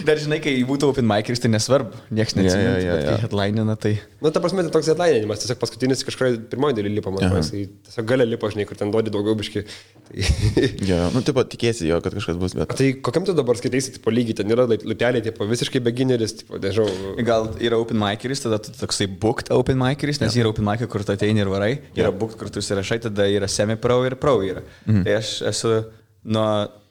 Dar žinai, kai būtų open mic'is, tai nesvarbu, nieks neatsimena, bet kai headlinina, tai... Nu, ta prasme, tai toks headlininimas, tiesiog paskutinis kažkoje pirmoji daly lipa, man atrodo, tiesiog galia lipa, žinai, kur ten duodi daugiau biški. Nu, tipo, tikėsi jo, kad kažkas bus, bet... Tai kokiam tu dabar skaitaisi, tipo, lygiai, ten yra lupeliai, tipo, visiškai beginneris, tipo, nežinau... Gal yra open mic'is, tada tu toksai booked open mic'is, nes yra open mic'ai, kur tu ateini ir varai, yra booked, kur tu įsirašai, tada yra semi-pro ir pro yra. Tai aš esu nuo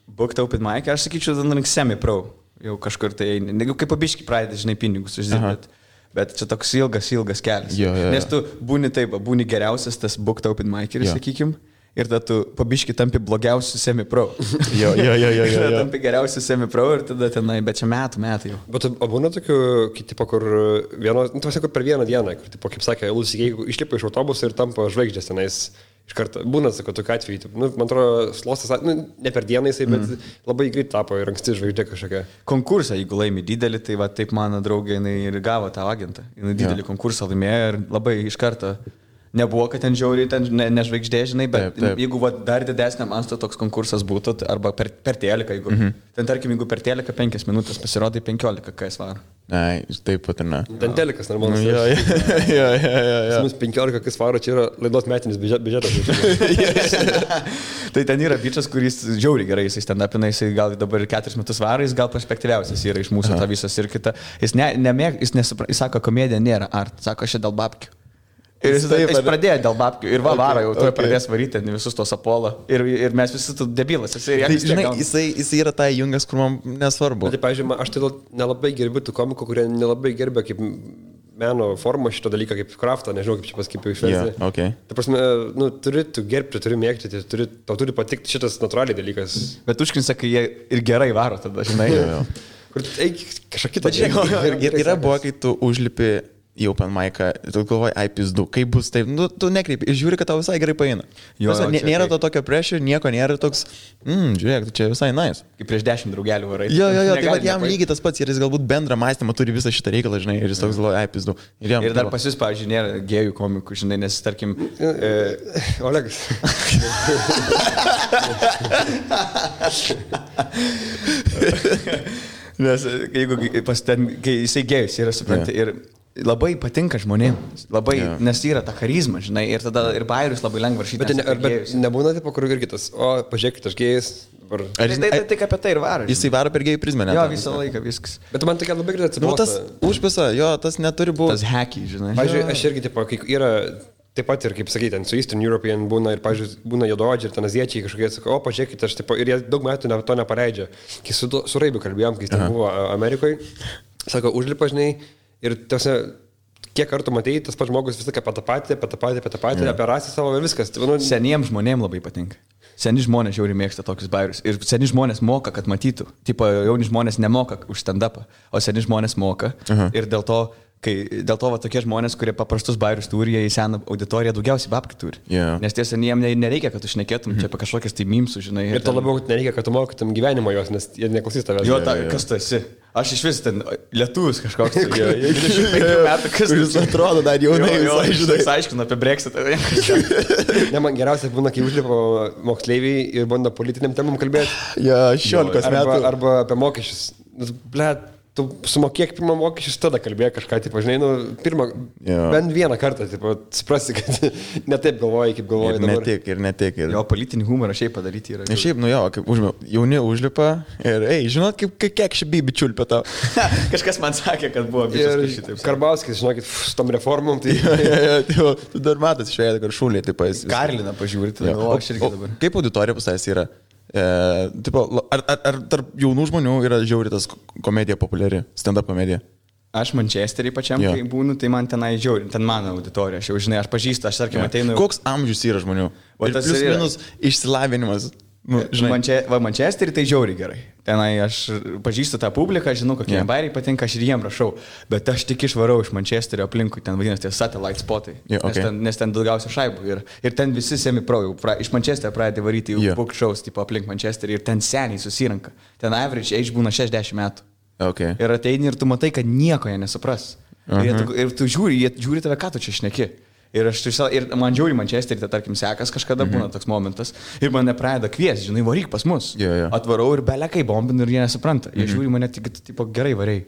booked open mic, aš sakyčiau, tada semi-pro. Jau kažkur tai, kaip pabiški pradedi, žinai, pinigus uždirbti. Bet čia toks ilgas kelias. Jo. Nes tu būni geriausias tas booked open miceris, sakykim. Ir tada tu pabiški tampi blogiausiu semi-pro. Jo. Tampi geriausiu semi-pro ir tada tenai, bet čia metai jau. Bet būna tokių, tipo, kur kur per vieną dieną, kur, tipo, kaip sakė, jeigu išlipa iš autobuso ir tampa žvaigždės tenais iš karto. Būna, sako, tokiu atveju. Man atrodo, Slosas, ne per dieną jisai, bet labai greit tapo ir anksti žvaigždė kažkokia. Konkursą, jeigu laimi didelį, tai va taip mano draugė, jinai ir gavo tą agentą. Jinai didelį konkursą laimėjo ir labai iš karto. Nebuvo, kad ten žiauriai, ten nežvaigždė, žinai, bet taip. Jeigu dar didesniam masto toks konkursas būtų, arba per teliką, jeigu, ten tarkim, jeigu per teliką 5 minutės pasirodai 15, kai svaro. Ai, taip pat ir ne. Ten telikas normalus. Jo. 15, kai svaro, čia yra laidos metinis biudžetas. Tai ten yra bičas, kuris žiauriai gerai, jis ten apina, jis gal dabar 4 metus varo, jis gal perspektyviausias yra iš mūsų tą visą ir kitą. Jis sako, komedija nėra art, sako, aš dėl babkių. Ir jis pradėjo dėl babkių ir varo jau, tu pradės varyti visus tos Apollo ir mes visi tu debilas. Jisai yra tai jungas, kur man nesvarbu. Tai, pavyzdžiui, aš tai nelabai gerbiu tų komikų, kurie nelabai gerbia kaip meno formą šito dalyką, kaip kraftą, nežinau, kaip čia paskaipiau išversti. Yeah, okay. Tai prasme, turi tu gerbti, turi mėgti, tau turi patikti šitas natūraliai dalykas. Bet užkrinsa, kai jie ir gerai varo tada, žinai. Kur eik kažką kitą. Yra buvo, kai tu užlipi į open mic'ą, tu galvoji, ai pizdu, kaip bus taip, tu nekreipi ir žiūri, kad tau visai gerai paeina. Nėra to tokio pressure, nieko nėra toks, žiūrėk, čia visai nice. Kaip prieš 10 draugelių varai. Jo, tai va jam lygiai tas pats ir jis galbūt bendrą mąstymą turi visą šitą reikalą, žinai, ir jis toks galvoja, ai pizdu. Ir dar pas jūs, pavyzdžiui, nėra gėjų komikų, žinai, nes, tarkim... Olegas. Nes kai jisai gėjus yra, supranti, ir labai patinka žmonėms, labai, nes yra ta charizma, žinai, ir tada ir bairius labai lengva rašyti. Bet nebūna taip, kur ir kitas, o pažiūrėkit, aš gėjus. Tai tik apie tai ir varo. Jisai varo per gėjų prizmę, ne? Jo, visą laiką viskas. Bet man tokia labai greitai atsibosta. Tas užpisa, jo, tas neturi būti. Tas hacky, žinai. Pavyzdžiui, aš irgi, tipo, kai yra... Taip pat ir, kaip sakyti, su Eastern European būna ir, pavyzdžiui, būna juodaodžiai ir ten aziečiai kažkokie, sako, o, pažiūrėkite, aš taip, ir jie daug metų to nepaleidžia. Kai su Raibiu kalbėjom, kai jis ten buvo Amerikoje, sako, užlipa, žinai, ir tiesa, kiek kartų matėjai, tas pats žmogus visą apie tą patį, apie rasį savo ir viskas. Seniems žmonėms labai patinka. Seni žmonės žiauriai mėgsta tokius bairius. Ir seni žmonės moka, kad matytų. Tipo, jauni žmonės nemoka už stand-upą, o seni žmonės moka. Ir dėl to va, tokie žmonės, kurie paprastus bairius turi, jie į seną auditoriją daugiausiai babkių turi. Nes tiesa, jiem nereikia, kad tu šnekėtum čia apie kažkokias tai mimsų, žinai. Ir to labiau nereikia, kad tu mokytum gyvenimo jos, nes jie neklausys tavęs. Jo, kas tu esi? Aš iš vis ten lietuvis kažkoks. 25 metų, kas jis atrodo dar jaunai. Jis aiškina apie Brexitą. Ne, man geriausia būna, kai užlipo moksleiviai ir bando politiniam temam kalbėti. Ja, 16 metų. Arba apie mokesčius. Blet, tu sumokėk pirmą mokesčius, tada kalbėk kažką, tipo, žinai, bent vieną kartą, tipo, suprasi, kad ne taip galvoji, kaip galvoji dabar. Ne tik. Jo, politinį humorą šiaip padaryti yra. Šiaip, kaip jauni užlipa ir, žinot, kiek ši bibi čiulpia tau. Kažkas man sakė, kad buvo bičias šitaip. Karbauskis, žinokit, su tom reformom, tai... Tu dar matas išvėdė, kad šūlė, taip pas. Karliną pažiūrėti, aš irgi dabar. Kaip auditorija pas yra? Ar tarp jaunų žmonių yra žiauri tas komedija populiari, stand-up komedija? Aš Manchesterį pačiam, kai būnu, tai man tenai žiauri, ten mano auditorija, aš jau žinai, aš pažįstu, aš tarkim ateinu. Koks amžius yra žmonių? Plius minus išsilavinimas. Manchesterį tai žiauriai gerai. Tenai aš pažįstu tą publiką, žinau, kokie bairiai patinka, aš ir jiem rašau, bet aš tik išvarau iš Manchesterio aplinkui, ten vadinasi tie satellite spotai, nes ten daugiausia šaibų ir ten visi semi-pro, iš Manchesterio pradeda varyti jau book shows tipo aplink Manchesterį ir ten seniai susirenka. Ten average age būna 60 metų. Ir ateini ir tu matai, kad nieko jie nesupras. Ir tu žiūri tave, ką tu čia šneki. Ir man žiūri Manchesterį, tai tarkim sekas kažkada būna toks momentas ir mane pradeda kviesti, žinai, varyk pas mus. Atvarau ir belekai bombinu ir jie nesupranta. Jie žiūri mane tik, tipo, gerai variai.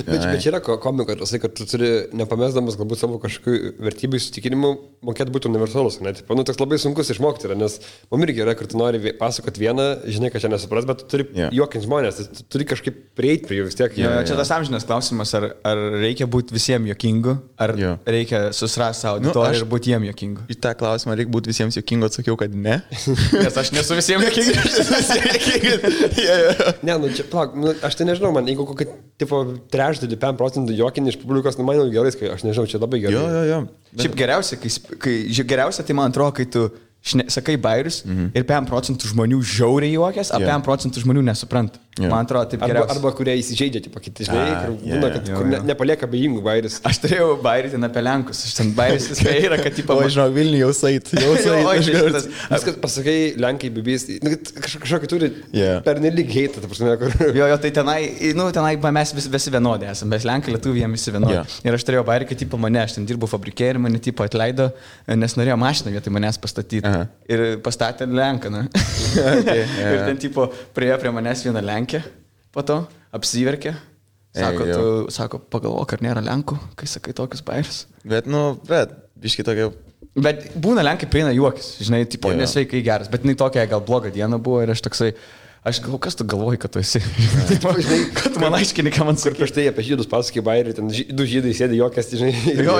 Bet čia yra komiko, kad tu turi, nepamesdamas galbūt savo kažkokių vertybių įsitikinimų, mokėti būti universalus. Toks labai sunkus išmokti yra, nes man irgi yra, kad tu nori pasakoti vieną, žinai, kad čia nesupras, bet tu turi juokinti žmonės, tu turi kažkaip prieiti prie jų vis tiek. Čia tas amžinas klausimas, ar reikia būti visiems juokingu, ar reikia susirasti savo auditoriją ir būti jiem jokingu. Į tą klausimą reikia būti visiems jokingu, atsakiau, kad ne. Nes aš nesu visiems jokingas. Ne, nu čia, plak, nu, aš tai nežinau, man, jeigu kokį, tipo, trečdalį, 5% juokinį iš publikos, nu, man jau gerai, aš nežinau, čia labai gerai. Jo. Šiaip geriausia, tai man atrodo, kai tu sakai bairius ir 5% žmonių žiauriai juokės, o 5% žmonių nesupranta. Man atrodo, taip geriausia. Arba kurie įsižeidžia, tipo, kiti žinai, kur būna, kad nepalieka abejingų bairius. Aš turėjau bairį ten apie Lenkus, aš ten bairis viskai yra, kad tipo... O, žinau, Vilnių jau sait. Viskas pasakai, Lenkai, bibys, kažkokį turi pernelyg heitą, ta prasme, kur... Jo, tai tenai mes visi vienodai esame, mes Lenkai, Lietuviai, jie visi vienodai. Ir aš turėjau bairį, kad tipo mane, aš ten dirbau fabrikė ir mane tipo atleido, nes norėjo mašiną vietoj manęs pastatyti. Ir pastatė Lenką, na. Ir ten tipo priejo prie manęs vieną Lenkę, po to apsiverkė. Sako, pagalvok, ar nėra Lenkų, kai sakai tokius bairius. Bet, biški tokia... Bet būna Lenkai prieina juokis, žinai, tipo, nesveikai geras, bet jinai tokia gal bloga diena buvo ir aš toksai... Aš galvoju, kas tu galvoji, kad tu esi? Žinai, kad tu man aiškini, ką man kur prieš tai apie žydus pasakai bairį, ten 2 žydai sėdi juokės, žinai. Jo.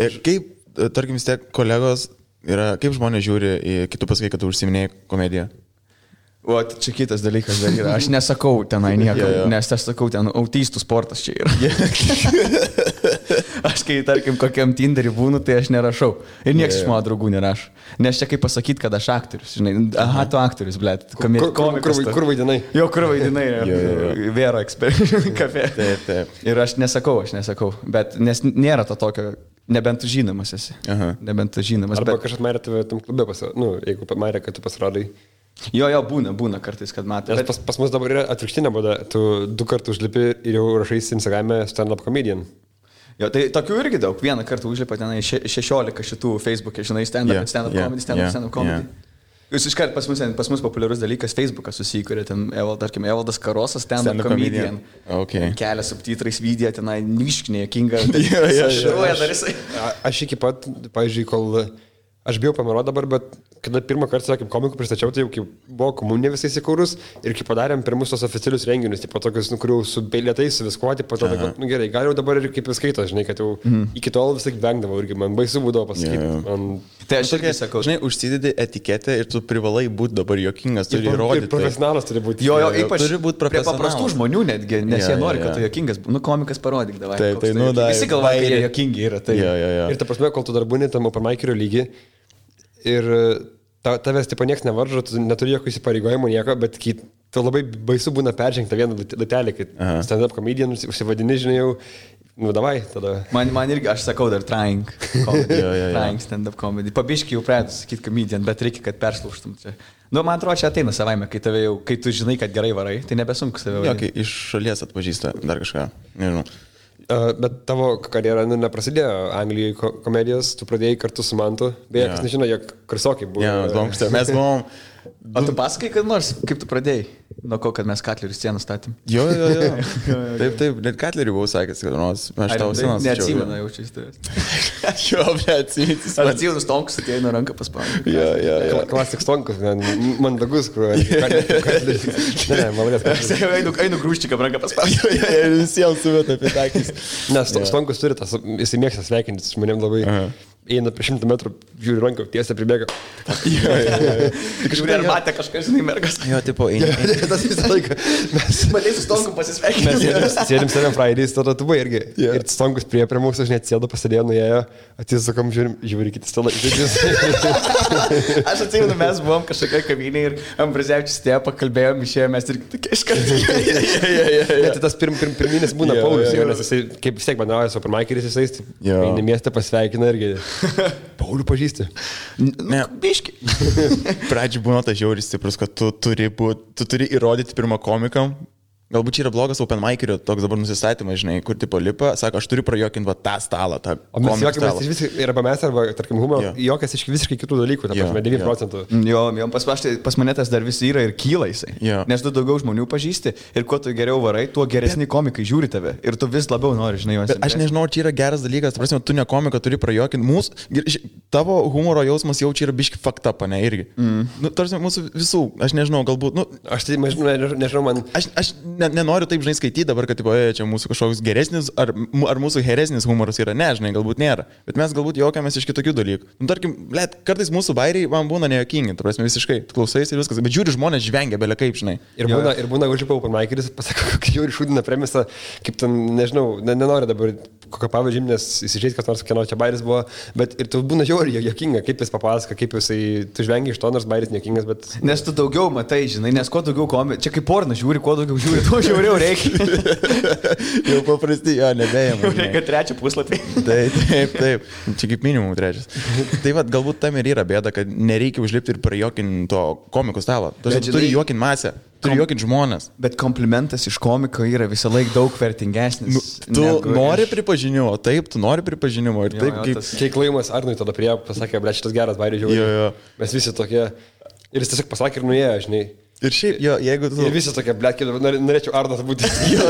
Ir kaip, tarkim, vis tiek kolegos yra, kaip žmonės žiūri į kitų pasakai, kad tu užsiminėjai komediją? O, čia kitas dalykas dar yra. Aš nesakau tenai nieko, nes aš sakau, ten autistų sportas čia yra. Aš kai, tarkim, kokiam Tinderį būnu, tai aš nerašau. Ir niekas iš mano draugų nerašo. Nes čia kaip pasakyti, kad aš aktorius, žinai. Aha, tu aktorius, blėt. Kur vaidinai? Jo, kur vaidinai. Vėro kafe. Taip. Ir aš nesakau. Bet nes nėra to tokio, nebent tu žinomas esi. Nebent tu žinomas. Arba kažkas marė tave tam klube jeigu marė, kad tu pasirodai. Jo, būna kartais, kad matai. Pas mus dabar yra atvirkštinė būda. Tu 2 kartus užlipi ir jau rašai Instagram'e stand-up comedian. Jo, tai tokių irgi daug. Vieną kartą užlipa tenai 16 šitų Facebook'e, žinai, stand-up comedy. Jūs iškart pas mus populiarus dalykas Facebookas susikūrė, ten, tarkim, Evaldas Karosas, stand-up comedian. Kelia subtitrais video, tenai niškinė, jokinga. Aš iki pat, pavyzdžiui, kol... Aš bijau pameruoti dabar, bet kada pirmą kartą, kaip komikų pristačiau, tai jau kaip buvo komunė visai įsikūrus ir kai padarėm pirmus tos oficialius renginius, tipo tokius, kurių su beilėtais, su viskuo, tipo to, kad, gerai, gal jau dabar ir kaip skaito, žinai, kad jau iki tol vis tik vengdavau irgi, man baisu būdavo pasakyti. Tai aš irgi sakau, žinai, užsidedi etiketę ir tu privalai būti dabar jokingas, turi įrodyti. Profesionalas turi būti. Jo, ypač prie paprastų žmonių netgi, nes jie nori, kad tu jokingas, komikas parodyk, davai. Visi galvoja, kad jie jokingi yra. Ir ta prasme, kol tu dar būni tam open mikerio lygi, ir tavęs tipo nieks nevaržo, tu neturi jokio įsipareigojimo nieko, bet tu labai baisu būna peržengti vieną latelį, kai stand-up comedian užsivadini, žinai, jau, davai, tada. Man irgi, aš sakau dar trying comedy, trying stand-up comedy. Pabiškai jau pradėtų sakyti comedian, bet reikia, kad perslaužtum čia. Man atrodo, čia ateina savaime, kai tu žinai, kad gerai varai, tai nebesunku save varai. Jo, kai iš šalies atpažįsta dar kažką, nežinau. Bet tavo karjera neprasidėjo Anglijoje komedijos, tu pradėjai kartu su Mantu, beje, kas nežino, jog kursiokai buvo. Mes buvom... O tu pasakai, kad nors, kaip tu pradėjai? Nuo ko, kad mes Katlerių sceną statėm? Jo. Taip, net Katlerių buvau sakęs, kad nors aš tavo sceną stačiau. Neatsimenu jaučiu iš tavęs. Jo, atsimenu. Aš atsimenu Stonkus, atėjo nuo ranką paspaudė. Jo. Klasik Stonkus, mandagus, kur... Ne, malonės. Einu grūščiką ranką paspaudė. Ir visiems suvėta apie takis. Nes Stonkus turi tas, jisai mėgsta sveikintis žmonėm labai. Eina prie 100 metrų, žiūri ranką, tiesiai pribėga. Kažkur ar matė kažkas, žinai, mergas. Jo, tipo, eina. Tas visą laiką. Mes matei su Stonku pasisveikinti. Mes sėdim Seven Fridays, tada tu buvai irgi. Ir Stonkus prie mūsų, aš net sėdo, pasėdėjo, nuėjo, atsisukom, žiūri kiti stalą. Aš atsimenu, mes buvom kažkokia kavinė ir Ambrazevičius tėjo, pakalbėjom, išėjome, mes ir tokie iškartai. Tai tas pirminis būna Paulius, nes jisai, kaip vis tiek bendrauja su openmikeris, jisai eina miestą, pasveikina irgi. Paulių pažįsti. Ne, biški. Pradžiai būna tas žiauris stiprus, kad tu turi įrodyti pirmą komikam. Galbūt čia yra blogas open mikerio toks dabar nusistatymas, žinai, kur tipo lipa, sako, aš turiu prajokinti tą stalą, tą o mes juokiamės iš visiškai, arba mes, arba, tarkim, humoro, juokias iš visiškai kitų dalykų, ta prasme, 9%. Jo, pas mane tas dar vis yra ir kyla jisai. Nes tu daugiau žmonių pažįsti ir kuo tu geriau varai, tuo geresni komikai žiūri tave ir tu vis labiau nori, žinai, juos. Aš nežinau, čia yra geras dalykas, ta prasme, tu ne komiką turi prajokinti, tavo humoro jausmas jau čia yra biški fucked up, ne, irgi. Nu, tarsi mūsų visų, aš nežinau, galbūt, nu, aš tai nežinau, man... Aš nenoriu taip, žinai, skaityti dabar, kad, tipo, čia mūsų kažkoks geresnis, ar mūsų geresnis humoras yra, ne, žinai, galbūt nėra. Bet mes galbūt juokiamės iš kitokių dalykų. Nu, tarkim, kartais mūsų bairiai man būna nejuokingi, tu prasme, visiškai klausais ir viskas, bet žiūri žmonės žvengia, belia kaip, žinai. Ir būna užlipa open mikeris, pasako, kaip žiūri šūdina premisą, kaip ten, nežinau, nenoriu dabar kokią pavyzdžių, nes įsižeis, kas nors kieno čia bairis buvo, bet ir tu būna žiauri juokinga, kaip jis papasako, kaip jisai, tu žvengi iš to, nors bairis nejuokingas, bet... Nes tu daugiau matai, žinai, nes kuo daugiau komedijų, čia kaip porna žiūri, kuo daugiau žiūri, tuo žiauriau reikia. Jau paprastai, jo, nebėjama. Reikia trečią puslapį. Taip. Čia kaip minimum trečias. Tai vad, galbūt tam ir yra bėda, kad nereikia užlipti ir prajuokinti to komikų stalo. Tu turi juokinti masę. Turi juokinti žmonės. Bet komplimentas iš komiko yra visą laiką daug vertingesnis. Tu nori pripažinimo, taip, tu nori pripažinimo. Ir taip, kaip... Čia įklaimas Arnui tada prie pasakė, ble, šitas geras bairis žiūri. Mes visi tokie... Ir jis tiesiog pasakė ir nuėjo, žinai. Ir šiaip, jo, jeigu tu... Ir visi tokie, ble, norėčiau Arnas būti. Jo.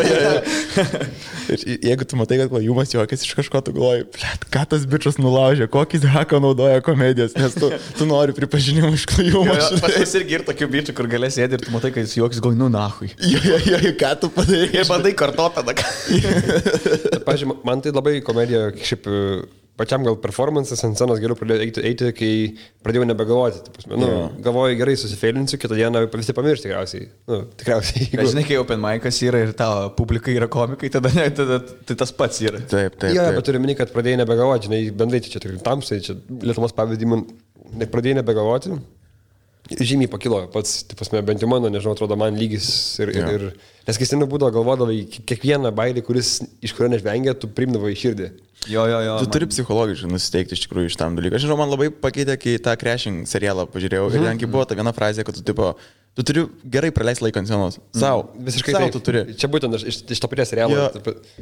Ir jeigu tu matai, kad klajumas juokas iš kažko, tu galvoji, ble, ką tas bičias nulaužė, kokį haką naudoja komedijas, nes tu nori pripažinimo iš klajumo. Pas mus irgi ir tokių bičių, kur galės sėdėti ir tu matai, kad jis juokas, galvoji, nu nahui. Jo, ką tu padarei? Ir bandai kartotą. Pavyzdžiui, man tai labai komedija, šiaip... Pačiam gal performances ant scenos geriau pradėjau eiti, kai pradėjau nebegalvoti. Galvoju, gerai susifeilinsiu, kitą dieną visi pamiršti tikriausiai. Tikriausiai. Žinai, kai open mic'as yra ir tavo publika yra komikai, tada tai tas pats yra. Taip. Jo, bet turiu minį, kad pradėjai nebegalvoti, žinai, bendrai čia tamsai, čia Lietuvos pavyzdį, man pradėjai nebegalvoti. Žymiai pakilo pats, bent jau mano, nežinau, atrodo man lygis ir nes kai seniau būdavo galvodavai, kiekvieną bairį, iš kurio nežvengia, tu priimdavai į širdį. Jo. Tu turi psichologiškai nusiteikti iš tikrųjų iš tam dalykų. Aš žinau, man labai pakeitė, kai tą Crashing serialą pažiūrėjau ir ten buvo ta viena frazė, kad tu turi gerai praleisti laiką ant scenos. Sau. Visiškai sau tu turi. Čia būtent iš to paties serialo.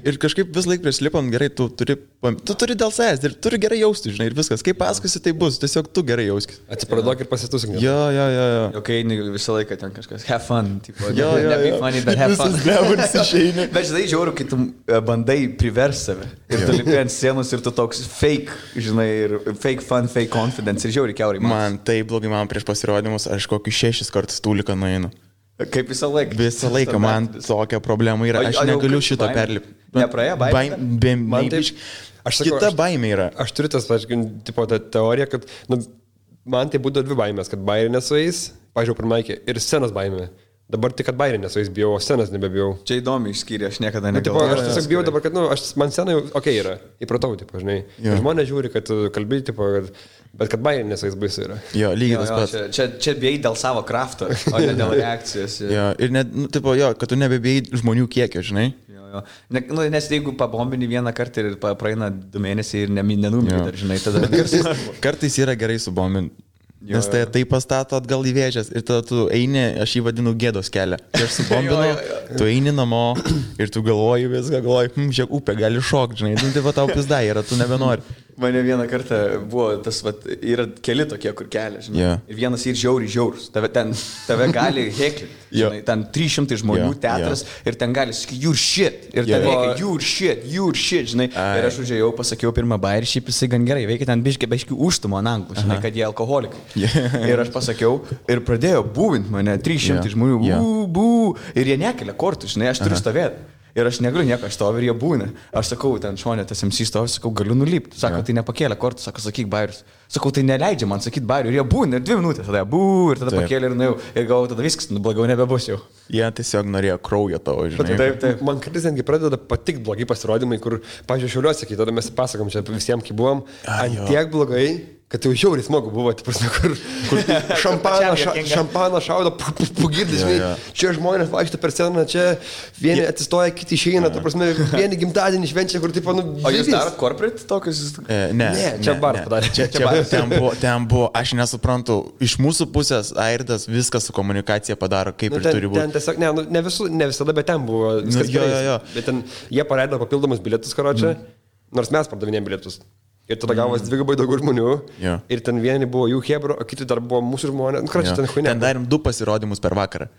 Ir kažkaip vis laik prieš lipant gerai, tu turi dėl savęs ir turi gerai jausti, žinai, ir viskas. Kaip pasakosi, tai bus, tiesiog tu gerai jauskis. Atsipraduok ir pasitusink. Jo. Okay, visą laiką ten kažkas have fun, tipo. Jo. Funny, but have fun. Visas išeini. Bet žinai, žiauru, kai tu bandai privers save. Ir tu lipi ant scenos ir tu toks fake, žinai, ir fake fun, fake confidence. Ir žiauri kiaurai. Man taip blogai, man prieš pasirodymus, aš kokius 6 kartus tūliką nueinu. Kaip visą laiką. Visą laiką man tokia problema yra. Aš negaliu šito perlipti. Nepraėjo baimė? Kita baimė yra. Aš turiu tas, tipo, tą teoriją, kad man tai būdavo 2 baimės, kad bairė nesueis, pažiūrėjau per Maikį, ir scenos baimė. Dabar tik, kad bairė nesueis bijau, o scenos nebebijau. Čia įdomi išskyrė, aš niekada negalvojau. Aš tiesiog bijau dabar, kad, man scena jau yra, įpratau, tipo, žinai. Žmonės žiūri, kad kalbėjai, tipo, bet kad bairė nesueis baisu yra. Jo, lygiai tas pats. Čia bijai dėl savo krafto, o ne dėl reakcijos. Jo, ir net, kad tu nebebijai žmonių kiekio, žinai. Nes jeigu pabombini vieną kartą ir praeina 2 mėnesiai ir nenumiri dar, žinai, tada... Kartais yra gerai subombinti. Nes tai pastato atgal į vėžės ir tada tu eini, aš jį vadinu gėdos kelią. Aš subombinu, tu eini namo ir tu galvoji viską, žiūrėk, upė gali šokti, žinai, tai va tau pizdai yra, tu nebenori. Mane vieną kartą buvo tas, yra keli tokie, kur kelia, žinai. Ir vienas ir žiaurus. Tave gali heklinti, žinai, ten 300 žmonių teatras ir ten gali sakyti, you're shit. Ir ten veikia, you're shit, žinai. Ir aš užėjau, pasakiau pirmą bairį, šiaip jisai gan gerai veikia, ten biškai užtumo ant anglų, žinai, kad jie alkoholikai. Ir aš pasakiau ir pradėjo būvint mane 300 žmonių, bū, ir jie nekelia kortų, žinai, aš turiu stovėti. Ir aš negaliu nieko, aš stoviu ir jie būna. Aš sakau, ten šonė tas MC stovi, sakau, galiu nulipti. Sako, tai nepakėlė kortų, sako, sakyk bairius. Sakau, tai neleidžia man sakyti bairių. Ir jie būna, ir 2 minutės, tada ir tada pakėlė ir nuėjau. Ir galvoju, tada viskas, blogiau nebebus jau. Jie tiesiog norėjo kraujo tavo, žinai. Taip. Man kartais netgi pradeda patikti blogi pasirodymai, kur, pavyzdžiui, Šiauliuose, kai tada mes pasakom čia visiems, kai buvom, ant tiek blogai, kad jau žiauriai smagu buvo, kur šampaną šaudo, pagirdis, čia žmonės vaikšto per sceną, čia vieni atsistoja, kiti išeina, vieni gimtadienį švenčia, kur tipo, O jūs darot corporate tokius? Ne, čia bar padarė. Ten buvo, aš nesuprantu, iš mūsų pusės Airdas viską su komunikacija padaro, kaip ir turi būti. Ten tiesiog, ne visada, bet ten buvo viskas gerai. Bet ten jie paleido papildomus bilietus, karočią, nors mes pardavinėjom bilietus. Ir tada gavos 2 daugiau žmonių. Ir ten vieni buvo jų hebro, o kiti dar buvo mūsų žmonės. Ten darėm 2 pasirodymus per vakarą.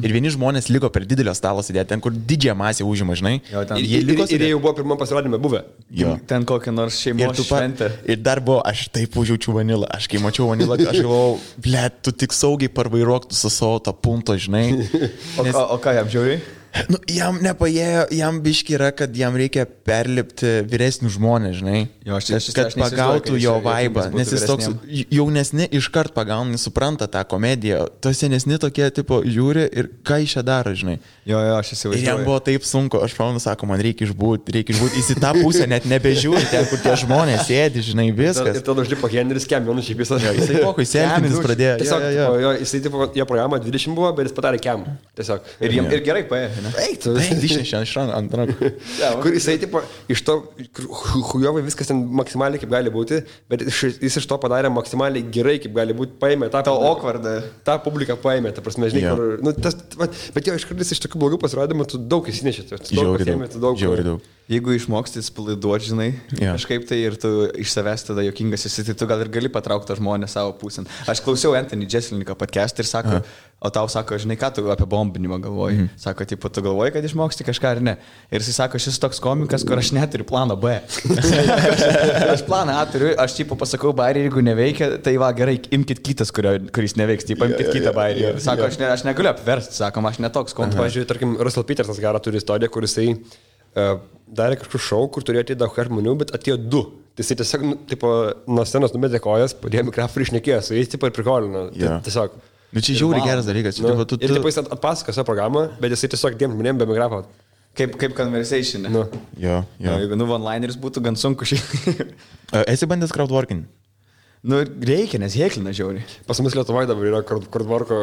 Ir vieni žmonės liko per didelio stalo sėdėti, ten kur didžiąją masę užima, žinai. Ir jie jau buvo pirmam pasirodymė buvę. Ten kokią nors šeimos šventę. Ir dar buvo, aš taip užjaučiu vanilą. Aš kai mačiau vanilą, aš galvojau, ble, tu tik saugiai parvairuok su savo tą punto, žinai. O ką jam žiūri? Nu, jam nepaėjo, jam biški yra, kad jam reikia perlipti vyresnių žmonės, žinai. Jo, Kad pagautų jo vaibą, nes jis toks jaunesni iškart pagauna, supranta tą komediją. To senesni tokie, tipo, žiūri ir ką iš čia daro, žinai. Jo, aš įsivaizduoju. Ir jam buvo taip sunku, aš pamenu, sako, man reikia išbūti, jis į tą pusę net nebežiūri, ten, kur tie žmonės sėdi, žinai, viskas. Ir tada užlipo Henris Kemionų šiaip visą. Jisai pokui sėdinis pradėjo. Tiesiog, jisai, tipo, jo programa 20 buvo, bet jis padarė Kem. Tiesiog. Ir gerai paėjo. Eik, tu Išnešė ant rankų. Kur jisai, tipo, iš to, hujovai viskas ten maksimaliai kaip gali būti, bet jis iš to padarė maksimaliai gerai kaip gali būti, paėmė tą awkwardą. tą publiką paėmė, ta prasme, žinai, kur, nu, bet jo, iš kartais iš tokių blogų pasirodymų tu daug įsinešė, tu daug. Jeigu išmoksti spilaiduoti, žinai, kažkaip tai ir tu iš savęs tada jokingas esi, tai tu gal ir gali patraukti tą žmonę savo pusėn. Aš klausiau Anthony Jeselniką podcast ir sako, o tau sako, žinai, ką tu apie bombinimą galvoji. Sako, tipo, tu galvoji, kad išmoksti kažką ar ne. Ir jis sako, šis toks komikas, kur aš neturiu plano B. Aš planą A turiu, aš tipo pasakau bairį, jeigu neveikia, tai va, gerai, imkit kitas, kuris neveiks, tipo, imkit kitą bairį. Sako, aš negaliu apversti, sakom, aš netoks komikas. Pavyzdžiui, tarkim, Russell Petersas gerą turi istoriją, kur jisai darė kažkokį šou, kur turėjo atėti daug žmonių, bet atėjo 2. Tai jisai tiesiog, tipo, nuo scenos numetė kojas, padėjo mikrofoną ir išnekėjo su jais, tipo, ir prikolino. Tiesiog. Nu, čia žiauriai geras dalykas. Ir tipo, jis atpasako savo programą, bet jisai tiesiog diem žmonėm be mikrofono. Kaip conversation. Jo. Jeigu one-lineris būtų gan sunku šiaip. Esi bandęs crowdworking? Nu, reikia, nes heklina žiauriai. Pas mus Lietuvoje dabar yra crowdworko,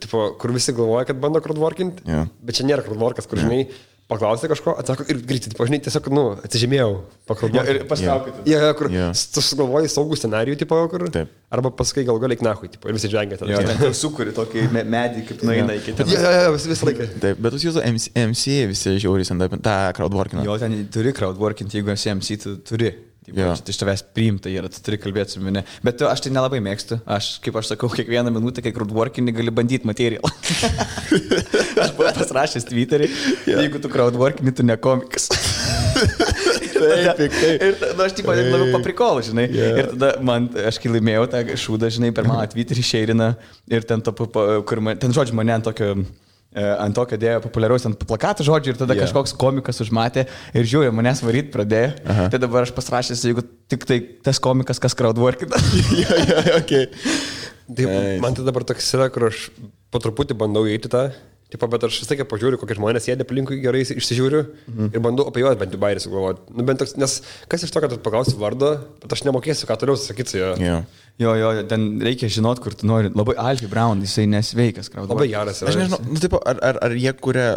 tipo, kur visi galvoja, kad bando crowdworkint, bet čia nėra crowdworkas, kur žinai, paklausė kažko, atsako ir greitai, tipo, žinai, tiesiog, atsižymėjau, pakraudiau. Ir pastraukite. Kur tu sugalvoji saugų scenarijų, tipo, kur, arba pasakai gal galiai knahui, tipo, ir visi džengia tada. Ten sukuri tokį medį, kaip nueina iki ten. Visą laiką. Taip, bet jūs jūsų MC visi žiauriai ant tą crowdworkingą. Jo, ten turi crowdworkint, jeigu esi MC, tu turi. Iš tavęs priimta yra, tu turi kalbėti su mane. Bet aš tai nelabai mėgstu. Aš, kaip aš sakau, kiekvieną minutę, kai crowdworkinį gali bandyti materialą. Aš buvau pasirašęs Twitterį, jeigu tu crowdworkinį, tu ne komikas. Ir tada aš tipo labiau paprikolu, žinai. Ir tada aš kai laimėjau tą šūdą, žinai, per mano Twitterį šeirina ir ten, ten žodžiu mane ant tokio dėjo populiaraus ant plakatų žodžių ir tada kažkoks komikas užmatė ir žiūrė, manęs varyt pradėjo. Tai dabar aš pasirašęs, jeigu tik tai tas komikas, kas crowdworkina. Man tai dabar toks yra, kur aš po truputį bandau įeiti tą. Tipo, bet aš vis tiek pažiūriu, kokie žmonės sėdė aplinkui, gerai išsižiūriu ir bandau apie juos bent jau bairį sugalvoti. Nu, bent toks, nes kas iš to, kad tu paklausi vardą, bet aš nemokėsiu, ką toliau sakyti su juo. Jo, ten reikia žinot, kur tu nori. Labai Alfie Brown, jisai nesveikas. Labai geras yra. Aš nežinau, tipo, ar jie kuria,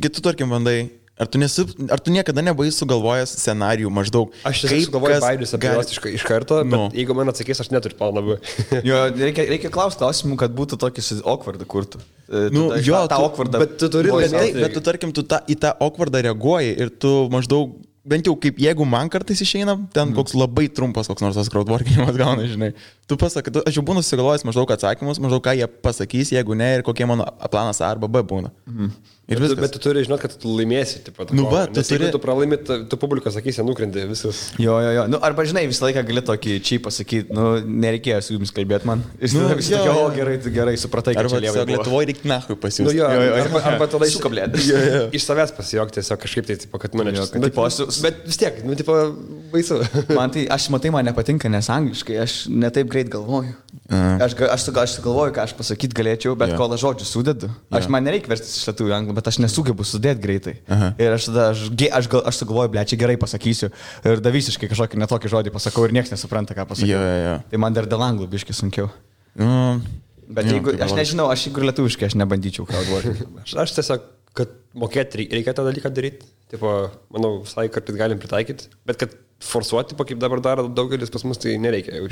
tu tarkim bandai, ar tu niekada nebuvai sugalvojęs scenarijų maždaug? Aš tiesiog sugalvoju bairius apie juos iš karto, bet jeigu man atsakys, aš neturiu planą. Jo, reikia klausti klausimų, kad būtų tokį awkwardą kurtų. Tą awkwardą. Bet tu turi bet tu tarkim, tu į tą awkwardą reaguoji ir tu maždaug, bent jau kaip jeigu man kartais išeina, ten koks labai trumpas koks nors tas crowdworkinimas gauna, žinai. Tu pasakai, aš jau būnu susigalvojęs maždaug atsakymus, maždaug ką jie pasakys, jeigu ne, ir kokie mano planas A arba B būna. Ir viskas. Bet tu turi žinot, kad tu laimėsi. Tipo, jeigu tu pralaimi, tu publiką sakysi, nukrenti visas. Jo. Nu, arba žinai, visą laiką gali tokį čia pasakyti, nereikėjo su jums kalbėti man. Visi tokie, gerai, supratai, kad čia lievai. Arba Lietuvoje reikia nahui pasiūsti. Arba tada sukablėti. Iš savęs pasijokti, tiesiog kažkaip tai, tipo, kad mane čia. Bet vis tiek, tipo, baisu. Aš matai, man nepatinka, nes angliškai aš netaip greit galvoju. Aš galvoju, ką aš pasakyti galėčiau, bet kol aš žodžius sudedu. Man nereikia verstis iš lietuvių anglų, bet aš nesugebu sudėti greitai. Ir aš sugalvoju, blečiai, gerai pasakysiu. Ir da visiškai kažkokį netokį žodį pasakau ir niekas nesupranta, ką pasakau. Tai man dar dėl anglų biškai sunkiau. Bet jeigu, aš nežinau, aš jeigu lietuviškai, aš nebandyčiau crowdworking. Aš tiesiog, kad mokėti reikia tą dalyką daryti. Tipo, manau, visai kartais galim pritaikyti. Bet kad forsuoti, kaip dabar daro daugelis pas mus, tai nereikia jau.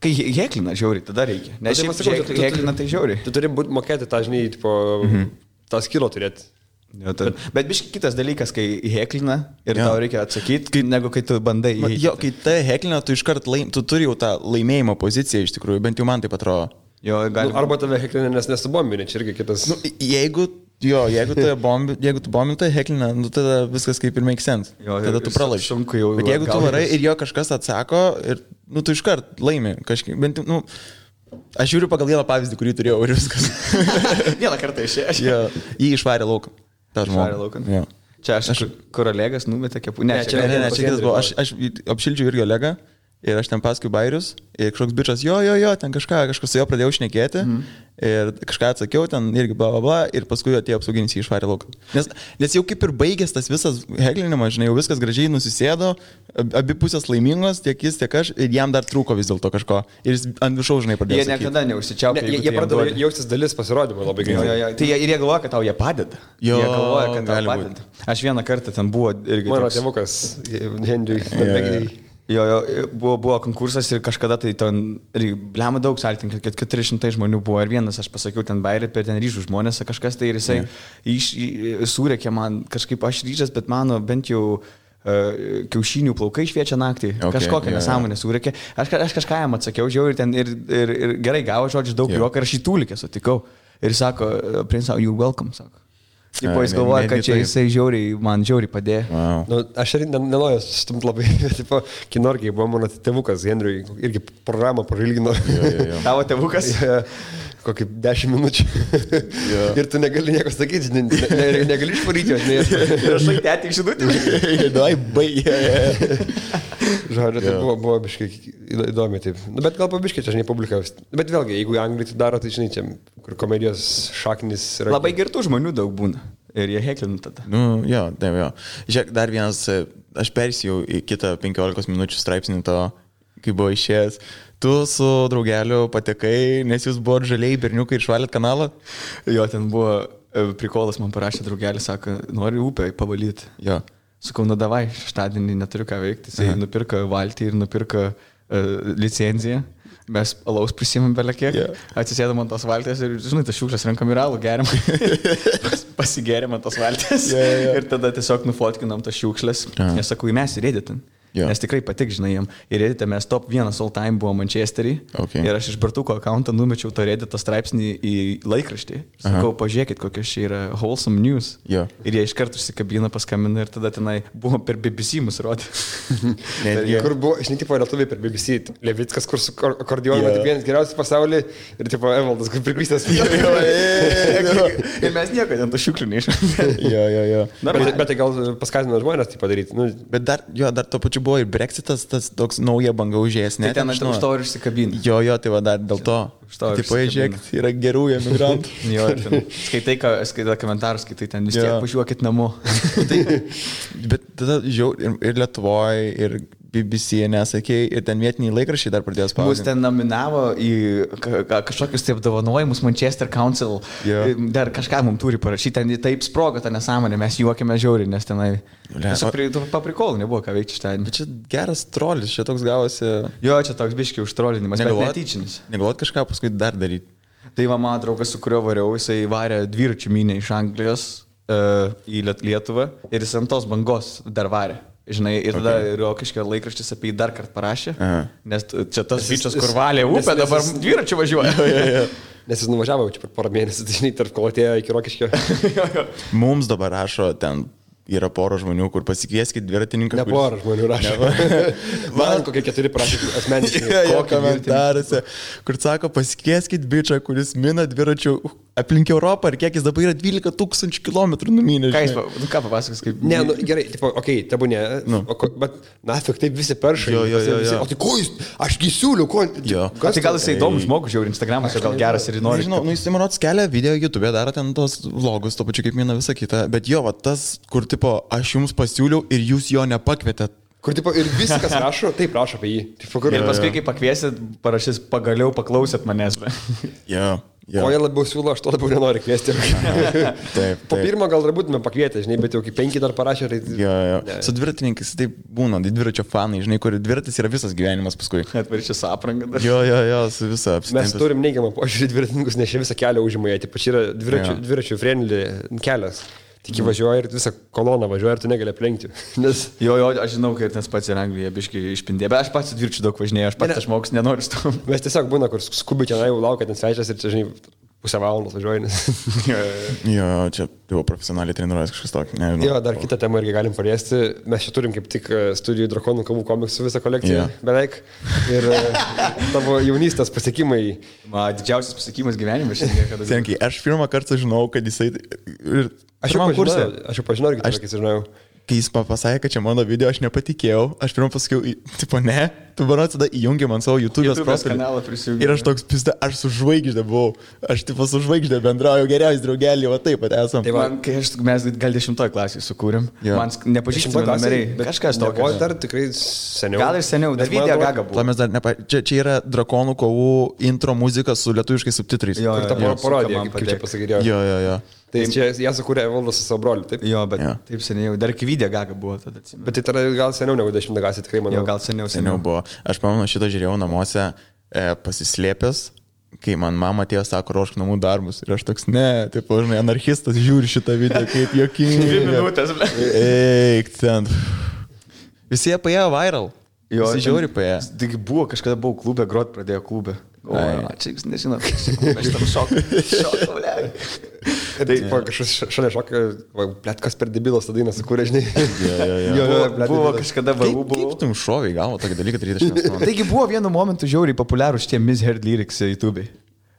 Kai heklina žiauriai, tada reikia. Nes šiaip heklina tai žiauriai. Tu turi mokėti tą, žinai, tipo, tą skilo turėti. Bet biškai kitas dalykas, kai heklina ir tau reikia atsakyti, negu kai tu bandai. Kai tai heklina, tu iškart tu turi jau tą laimėjimo poziciją iš tikrųjų, bent jau man taip atrodo. Arba tave heklina, nes nesubombini, čia irgi kitas. Jeigu tu bombini, tai heklina, tada viskas kaip ir make sense. Tada tu pralaimi. Bet jeigu tu varai ir jo kažkas atsako, ir tu iškart laimi. Bent jau, aš žiūriu pagal vieną pavyzdį, kurį turėjau ir viskas. Vieną kartą išėjęs. Jį išvarė lauk. tą Švarė žmogų. laukan. Jo. Čia aš kur Olegas numetė kepų. Ne, Ne, čia kitas buvo. Aš apšildžiau irgi Olegą ir aš ten paskui bairius ir kažkoks bičas, jo, ten kažkas su jo pradėjau šnekėti ir kažką atsakiau, ten irgi bla bla bla ir paskui atėjo apsauginis į išvarę lauką. Nes jau kaip ir baigęs tas visas heglinimas, žinai, jau viskas gražiai nusisėdo, abi pusės laimingos, tiek jis, tiek aš ir jam dar trūko vis dėlto kažko ir jis ant viršaus, žinai, pradėjo. Jie niekada neužsičiaupė. Jie pradėjo jaustis dalis pasirodymo labai greitai. Tai ir jie galvoja, kad tau jie padeda. Jo, jie galvoja, kad tau gali padeda. Aš vieną kartą ten buvo irgi. Mano tėvukas, Henriui. Jo, buvo konkursas ir kažkada tai ten, blema daug saltininkų, kad 400 žmonių buvo ir vienas, aš pasakiau, ten bairį, per ten ryžų žmonės, kažkas tai ir jisai surėkė man, kažkaip aš ryžęs, bet mano bent jau kiaušinių plaukai šviečia naktį, kažkokią nesąmonę surėkė. Aš kažką jam atsakiau, žiūrėjau, ir ten ir gerai gavo žodžių daug juoko ir aš į tūlikę sutikau. Ir sako, princau, you're welcome, sako. Tipo, jis galvoja, kad čia jisai man žiauriai padėjo. Wow. Nu, aš ir nenoriu stumt labai, tipo, kinorgiai buvo mano tėvukas Henriui, irgi programą parilgino. Tavo tėvukas? Kokį 10 minučių. Ir tu negali nieko sakyti, negali išvaryti, ir aš tai tik žinutį. Dai, baigė. Žodžiu, tai buvo biškai įdomi, taip. Nu, bet gal pabiškai čia, žinai, publikavus. Bet vėlgi, jeigu Anglija tai daro, tai žinai, čia, kur komedijos šaknis yra. Labai girtų žmonių daug būna. Ir jie heklina tada. Nu, jo, taip, jo. Žiūrėk, dar vienas, aš persijau į kitą 15 minučių straipsnį to, kai buvo išėjęs. Tu su draugeliu patekai, nes jūs buvo žaliai berniukai ir švalėt kanalą? Jo, ten buvo prikolas, man parašė draugelis, sako, nori upę pavalyti. Jo. Sakau, nu davai, šeštadienį neturiu ką veikti. Jisai nupirko valtį ir nupirko licenciją. Mes alaus prisimėm belekiek, atsisėdam ant tos valtės ir, žinai, tas šiukšlės renkam ir alų geriam. Pasigeriam ant tos valtės ir tada tiesiog nufotkinam tas šiukšlės. Nes sakau, mes ir editin. Nes tikrai patik, žinai, jam. Ir editė mes top 1 all time buvo Manchesterį. Ir aš iš Bartuko akauntą numečiau to edito straipsnį į laikraštį. Sakau, pažiūrėkit, kokios čia yra wholesome news. Ir jie iš karto užsikabina, paskambina ir tada tenai buvo per BBC mus rodė. Kur buvo, žinai, tipo lietuviai per BBC. Levickas, kur su akordionu, vienas geriausias pasaulyje ir tipo Evaldas, kur priklystęs. Ir mes nieko ten to šiukšlių neišmėm. Bet tai gal paskatino žmonės tai padaryti. Bet dar to pačiu buvo ir Brexitas, tas toks nauja banga užėjęs. Tai ten aš už to ir išsikabinu. Jo, tai va dar dėl to. Taip, žiūrėk, yra gerų emigrantų. Jo, skaitai komentarus, skaitai ten vis tiek važiuokit namo. Bet tada žiūrėjau ir Lietuvoje, ir BBC, nesakėjai, ir ten vietiniai laikraščiai dar pradėjo spausdinti. Mus ten nominavo į kažkokius taip apdovanojimus Manchester Council. Dar kažką mums turi parašyti, ten taip sprogo tą nesąmonę, mes juokėme žiauriai, nes tenai paprikolų nebuvo ką veikti šitą. Bet čia geras trolis, čia toks gavosi. Jo, čia toks biškiai užtrolinimas, bet netyčinis. Negalvot kažką paskui dar daryti. Tai va, mano draugas, su kuriuo variau, jisai varė dviračių mynę iš Anglijos į Lietuvą ir jis ant tos bangos dar varė. Žinai, ir tada Rokiškio laikraštis apie jį dar kartą parašė, nes čia tas bičias, kur valė upę, dabar dviračių važiuoja. Nes jis nuvažiavo čia per porą mėnesių, tai žinai, tarp kolotėjo iki Rokiškio. Mums dabar rašo ten. Yra pora žmonių, kur pasikvieskit dviratininką. Ne pora žmonių rašo. Man kokie 4 prašė asmeniškai. Komentaruose, kur sako, pasikvieskit bičą, kuris mina dviračių aplink Europą ir kiek jis dabar yra 12 000 km numynė. Ką papasakos kaip? Ne, nu gerai, tipo, okei, tabu ne, bet nafik taip visi peršai. O tai ko jis, aš gisiuliu, ko? Tai gal jisai įdomus žmogus, žiūri, Instagramas jau gal geras ir nori. Nežinau, jis man atskelia video YouTube, daro ten tos vlogus, to pačiu kaip mina visą kitą, bet jo, va, tas, kur tipo, aš jums pasiūliau ir jūs jo nepakvietėt. Kur tipo ir viskas rašo, taip rašo apie jį. Tipo, kur... Ir paskui, kai pakviesit, parašys, pagaliau paklausėt manęs. O jie labiau siūlo, aš to labiau nenoriu kviesti. Taip. Po pirmo gal dar būtume pakvietę, žinai, bet jau kai 5 dar parašė. Tai... Jo. Su dviratininkais taip būna, dviračio fanai, žinai, kur dviratis yra visas gyvenimas paskui. Atvaršė su apranga dar. Jo, su visa apsitempęs. Mes turim neigiamą požiūrį dviratininkus, nes čia visą kelią užima, jie, čia yra dviračių friendly kelias. Tik važiuoja ir visą koloną važiuoja ir tu negali aplenkti. Nes... Jo, aš žinau, kad tas pats ir Anglija biškai išpindė, bet aš pats dviračių daug važinėjau, aš pats žmogus nenoriu su tom. Mes tiesiog būna, kur skubi tenai laukia ten svečias ir čia, žinai, pusę valandos važiuoju. Jo, čia jau profesionaliai treniruojas kažkas tokio. Nežinau. Jo, dar kitą temą irgi galim paliesti. Mes čia turim kaip tik studijų Drakonų kovų komiksų visą kolekciją beveik. Ir tavo jaunystės pasiekimai. Didžiausias pasiekimas gyvenime šiandien, kada... Senkiai, aš pirmą kartą žinau, kad jisai... Aš jau pažinau, irgi kai žinau. Kai jis pasakė, kad čia mano video, aš nepatikėjau. Aš pirmą pasakiau, tipo, ne, tu manau, tada įjungi man savo YouTube'os kanalą prisijungi. Ir aš toks pizda, aš su žvaigždė buvau. Aš tipo su žvaigždė bendrauju, geriausias draugelį, o taip pat esam. Tai man, kai mes gal 10 klasėje sukūrėm, man nepažįstami numeriai. Kažkas tokio. O dar tikrai seniau. Gal ir seniau, dar video gaga buvo. Mes dar čia yra Drakonų kovų intro muzika su lietuviškais subtitrais. Jo, ta parodija, kaip čia pasakydėjau. Jo. Tai čia jie sukūrė Evaldas su savo broliu, taip? Jo, bet taip seniai, dar iki video gaga buvo tada atsimenu. Bet tai tada gal seniau negu 10 klasė, tikrai manau. Jo, gal seniau buvo. Aš pamenu, šitą žiūrėjau namuose pasislėpęs, kai man mama atėjo, sako, ruošk namų darbus. Ir aš toks, ne, taip, žinai, anarchistas žiūri šitą video, kaip jokingai. 2 minutės, ble. Eik, ten. Visi jie paėjo viral. Jo, visi žiūri paėjo. Tik buvo, kažkada buvau klube, grot pradėjo klube. O, čia jūs nežinot, aš tam šokau, ble. Tai kažkas šalia šokio, blėt, kas per debilas tą dainą sukūrė, žinai. Jo, buvo kažkada varu buvo. Kaip tu šoviai galvo tokį dalyką daryti? Taigi buvo vienu momentu žiauriai populiarūs šitie Misheard lyrics YouTube'ai.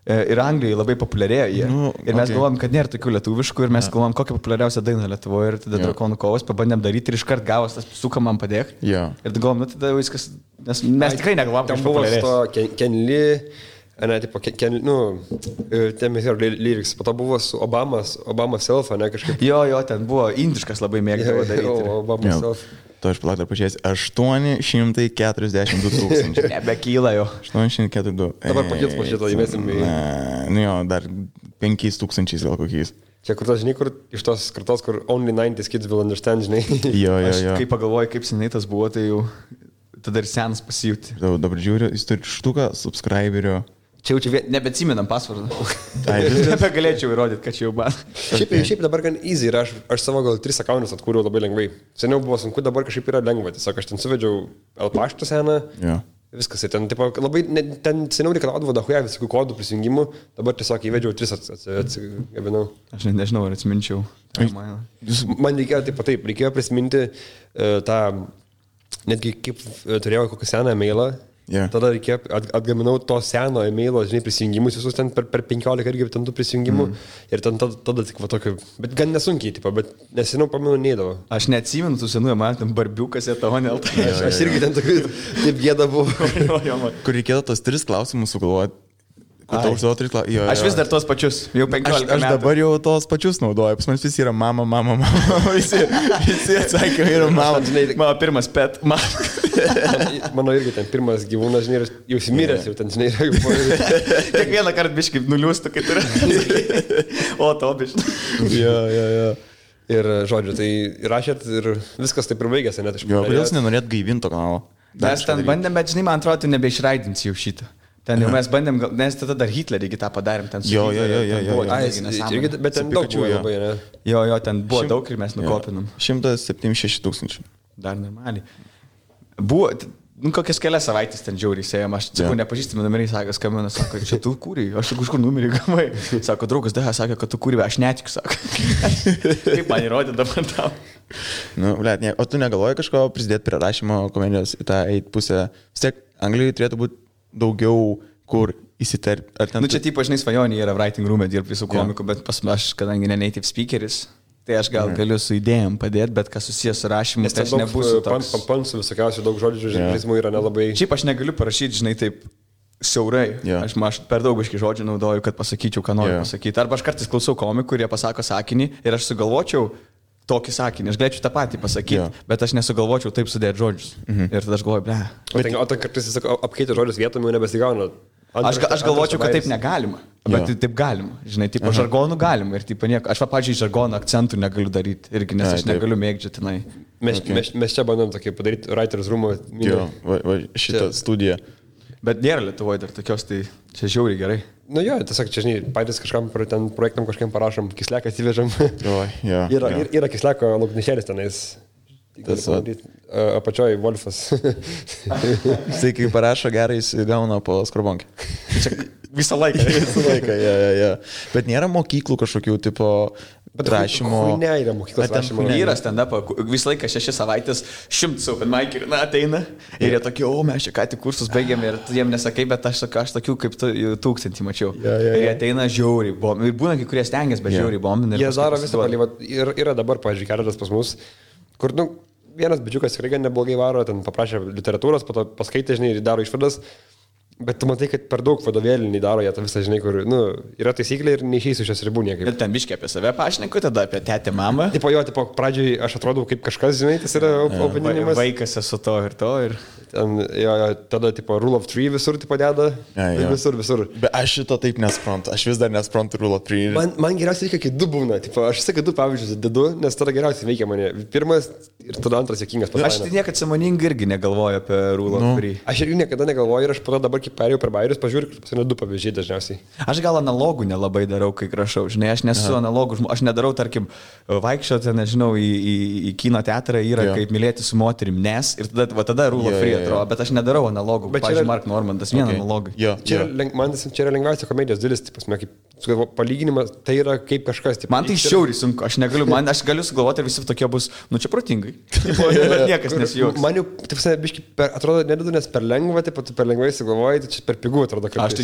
Ir Anglijoje labai populiarėjo jie. Ir mes galvom, kad nėra tokių lietuviškų ir mes galvom, kokią populiariausią dainą Lietuvoje. Ir tada Drakonų kovos pabandėm daryti ir iškart gavos tas suka man padėk. Ir galvom, nu tada viskas, nes mes tikrai negalvom, kad populiarės. Ten buvo to Kenly, ne, tipo, ten lyrics, po to buvo su Obama self, ne, kažkaip. Jo, ten buvo indiškas labai mėgdavo daryti. Obama self. To aš palauk dar pažiūrėsiu. 842 tūkstančiai. Nebekyla jo. 842. Dabar pakils po šito įmesim į... Nu jo, dar 5 tūkstančiais gal kokiais. Čia kur tas, žinai, kur iš tos kartos, kur only 90s kids will understand, žinai. Jo. Kai pagalvoju, kaip seniai tas buvo, tai jau tada ir senas pasijūti. Dabar žiūriu, jis turi štuką subscriberio. Čia jau nebeatsimenam pasvardą. Nebegalėčiau įrodyti, kad čia jau man. Šiaip dabar gan easy ir aš savo gal 3 akauntus atkūriau labai lengvai. Seniau buvo sunku, dabar kažkaip yra lengva. Tiesiog aš ten suvedžiau L-paštą seną. Viskas. Ten, tipo, labai, ten seniau reikalaudavo dahuja visokių kodų prisijungimų. Dabar tiesiog įvedžiau 3 atsigabinau. Aš nežinau, ar atsiminčiau. Man reikėjo taip, reikėjo prisiminti tą, netgi kaip turėjau kokią seną e-mailą. Tada reikėjo, atgaminau to seno e-mailo, žinai, prisijungimus visus ten per 15 irgi ten tų prisijungimų ir ten tada tik va tokio, bet gan nesunkiai, tipo, bet nesenau pamenu neįdavo. Aš neatsimenu tų senųjų, man ten barbiukas ir tavo nelta. Aš irgi ten tokių, taip gėda buvo. Kur reikėjo tos 3 klausimus sugalvoti. Aš vis dar tos pačius, jau 15 metų. Aš dabar jau tos pačius naudoju, pas man visi yra mama. Visi atsakymai yra mama. Mano pirmas pet, mama. Mano irgi ten pirmas gyvūnas, žinai, jau simiręs, jau ten, žinai, yra jau po... Kiekvieną kartą biškai nuliūstų, kai turi. O, to biškai. Jo. Ir, žodžiu, tai rašėt ir viskas taip ir baigėsi, net iš jo, kodėl jūs nenorėt gaivinto kanalo? Mes ten bandėm, bet, žinai, man atrodo, tu nebeišraidinsi jau šitą. Ten jau mes bandėm, nes tada dar Hitlerį tą padarėm. Jo. Bet ten daug buvo labai, ne? Jo, ten buvo daug ir mes nukopinom. 176 tūkstančių. Dar normaliai. Buvo, kokias kelias savaitės ten žiauriai sėjom, aš sakau, nepažįstami numeriai, skambina, sako, čia tu kūrei, aš kažkur numerį gavai. Sako, draugas Deha, sakė, kad tu kūrei, aš netikiu, sako. Kaip man įrodė dabar tau? Nu, blėt, o tu negalvoji kažko prisidėti prie rašymo komedijos į tą pusę? Vis tiek, Anglijoje turėtų būti daugiau kur įsiterpti. Nu čia taip, žinai, svajonė yra writing room'e dirbti visų komikų, bet aš, kadangi ne native speakeris, tai aš gal galiu su idėjom padėti, bet kas susijęs su rašymu, tai aš nebūsiu toks. Pansų visokiausių daug žodžių, žurnalizmų yra nelabai. Šiaip aš negaliu parašyti, žinai, taip siaurai. Aš per daug aiškiai žodžių naudoju, kad pasakyčiau, ką noriu pasakyti. Arba aš kartais klausau komikų, kurie pasako sakinį ir aš sugalvočiau tokį sakinį, aš galėčiau tą patį pasakyti, bet aš nesugalvočiau taip sudėti žodžius. Ir tada aš galvoju, ble. O ten kartais jis apkeitė žodžius vietom, jau nebesigauna. Aš galvočiau, kad taip negalima, bet taip galima. Žinai, tipo žargonų galima ir tipo nieko. Aš, pavyzdžiui, žargonų akcentų negaliu daryti irgi, nes aš negaliu mėgdžioti tenai. Mes čia bandom tokį padaryti writers room'o. Jo, šitą studiją. Bet nėra Lietuvoje dar tokios, tai čia žiauriai gerai. Nu jo, tiesiog čia, žinai, patys kažkam ten projektam kažkam parašom, kisleką atsivežam. Yra kisleko lauknešėlis tenais. Apačioj Wolfas. Tai kai parašo gerai, jis gauna po skrubonkę. visą laiką. Visą laiką, ja. Bet nėra mokyklų kažkokių tipo rašymo. Ne, yra mokyklos rašymo. Yra stand-up, visą laiką 6 savaitės 100 open mic ir ateina ir jie tokie, mes čia ką tik kursus baigėme ir tu jiem nesakai, bet aš tokių kaip 1000 mačiau. Ir jie ateina žiauriai, ir būna kai kurie stengiasi, bet žiauriai bombina. Jie daro visą palį, ir yra dabar, pavyzdžiui, keletas pas mus, kur, vienas bičiukas tikrai gan neblogai varo, ten paprašė literatūros, po to paskaitė, žinai, ir daro išvadas. Bet tu matai, kad per daug vadovėlį nedaro jie tą visą, žinai, kur, yra taisyklė ir neišeisiu šios ribų niekaip. Ir ten biškiai apie save pašneku, tada apie tetę mamą. Tipo, pradžioj aš atrodau kaip kažkas, žinai, tas yra opinimas. Vaikas esu to ir to. Ir... Ten, tada, tipo, rule of 3 visur, tipo, deda. Visur. Bet aš šito taip nesprantu, aš vis dar nesprantu rule of 3. Man geriausiai reikia, kai 2 būna, tipo, aš sakai 2 pavyzdžius dedu, nes tada geriausiai veikia mane. Pirmas ir tada antras juokingas. Aš tai niekada sąmoningai irgi negalvoju apie rule of 3. Aš irgi niekada negalvoju ir aš po to dabar, kai perėjau per bairius, pažiūrėjau, kad pasirė 2 pavyzdžiai dažniausiai. Aš gal analogų nelabai darau, kai rašau, žinai, aš nesu analogų, aš nedarau, tarkim, vaikščioti, nežinau, į kino teatrą yra kaip mylėti su moterim, nes ir tada rule of 3 atrodo, bet aš nedarau analogų, bet pavyzdžiui, Mark Normandas, vien analogų. Man čia yra lengviausia komedijos dalis, palyginimas, tai yra kaip kažkas. Man tai šiauriai sunku, aš galiu sugalvoti ir visi tokie bus, čia protingai. Niekas nesijuoks. Man jau, biškai, atrodo, nededu, nes per lengva, per lengvai sugalvoji, tai čia per pigų atrodo. Aš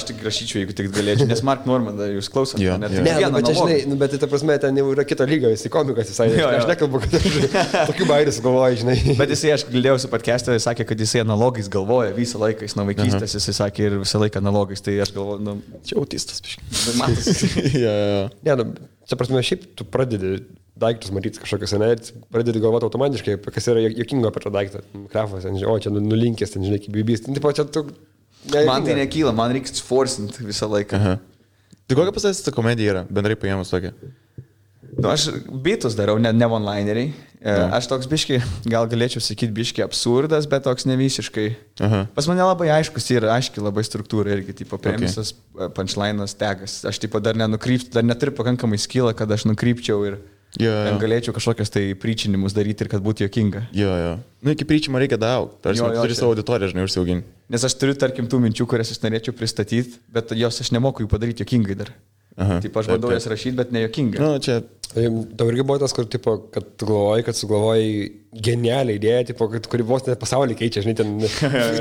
tik rašyčiau, jeigu tik galėčiau, nes Mark Normandą jūs klausote. Bet čia, žinai, bet ta prasme, ten jau yra kito lygio, jis komikas visai. Aš nekalbu, kad tokių bairių sugalvoji, žinai. Bet jisai, aš girdėjau su podcast'e, jis sakė, kad jisai analogais galvoja visą laiką, jis nuo vaikystės, jisai sakė ir visą laiką analogais, tai aš galvoju, čia autistas, biškai. Čia prasme, šiaip tu pradedi daiktus matyti kažkokius, ne, pradedi galvoti automatiškai, kas yra juokingo apie tą daiktą. Krafas, čia nulinkęs, žinai, kaip bibys. Man tai nekyla, man reikia forcinti visą laiką. Tai kokia pasakys ta komedija yra, bendrai paėmus tokia? Aš bitus darau, ne one-lineriai. Aš toks biškai, gal galėčiau sakyti biškai absurdas, bet toks ne visiškai. Pas mane labai aiškus yra, aiškiai labai struktūra irgi, tipo premisas, punchline'as, tegas. Aš tipo dar nenukrypčiau, dar neturiu pakankamai skylą, kad aš nukrypčiau ir galėčiau kažkokias tai pričinimus daryti ir kad būtų juokinga. Iki pričimo reikia daug, turi savo auditoriją, žinai, užsiauginti. Nes aš turiu, tarkim, tų minčių, kurias aš norėčiau pristatyti, bet jos aš nemoku jų padaryti juokingai dar. Taip, aš bandau jas rašyti, bet ne juokingai. Tau irgi buvo tas, kur, tipo, kad tu galvoji, kad sugalvoji genialią idėją, tipo, kuri vos net pasaulį keičia, žinai, ten,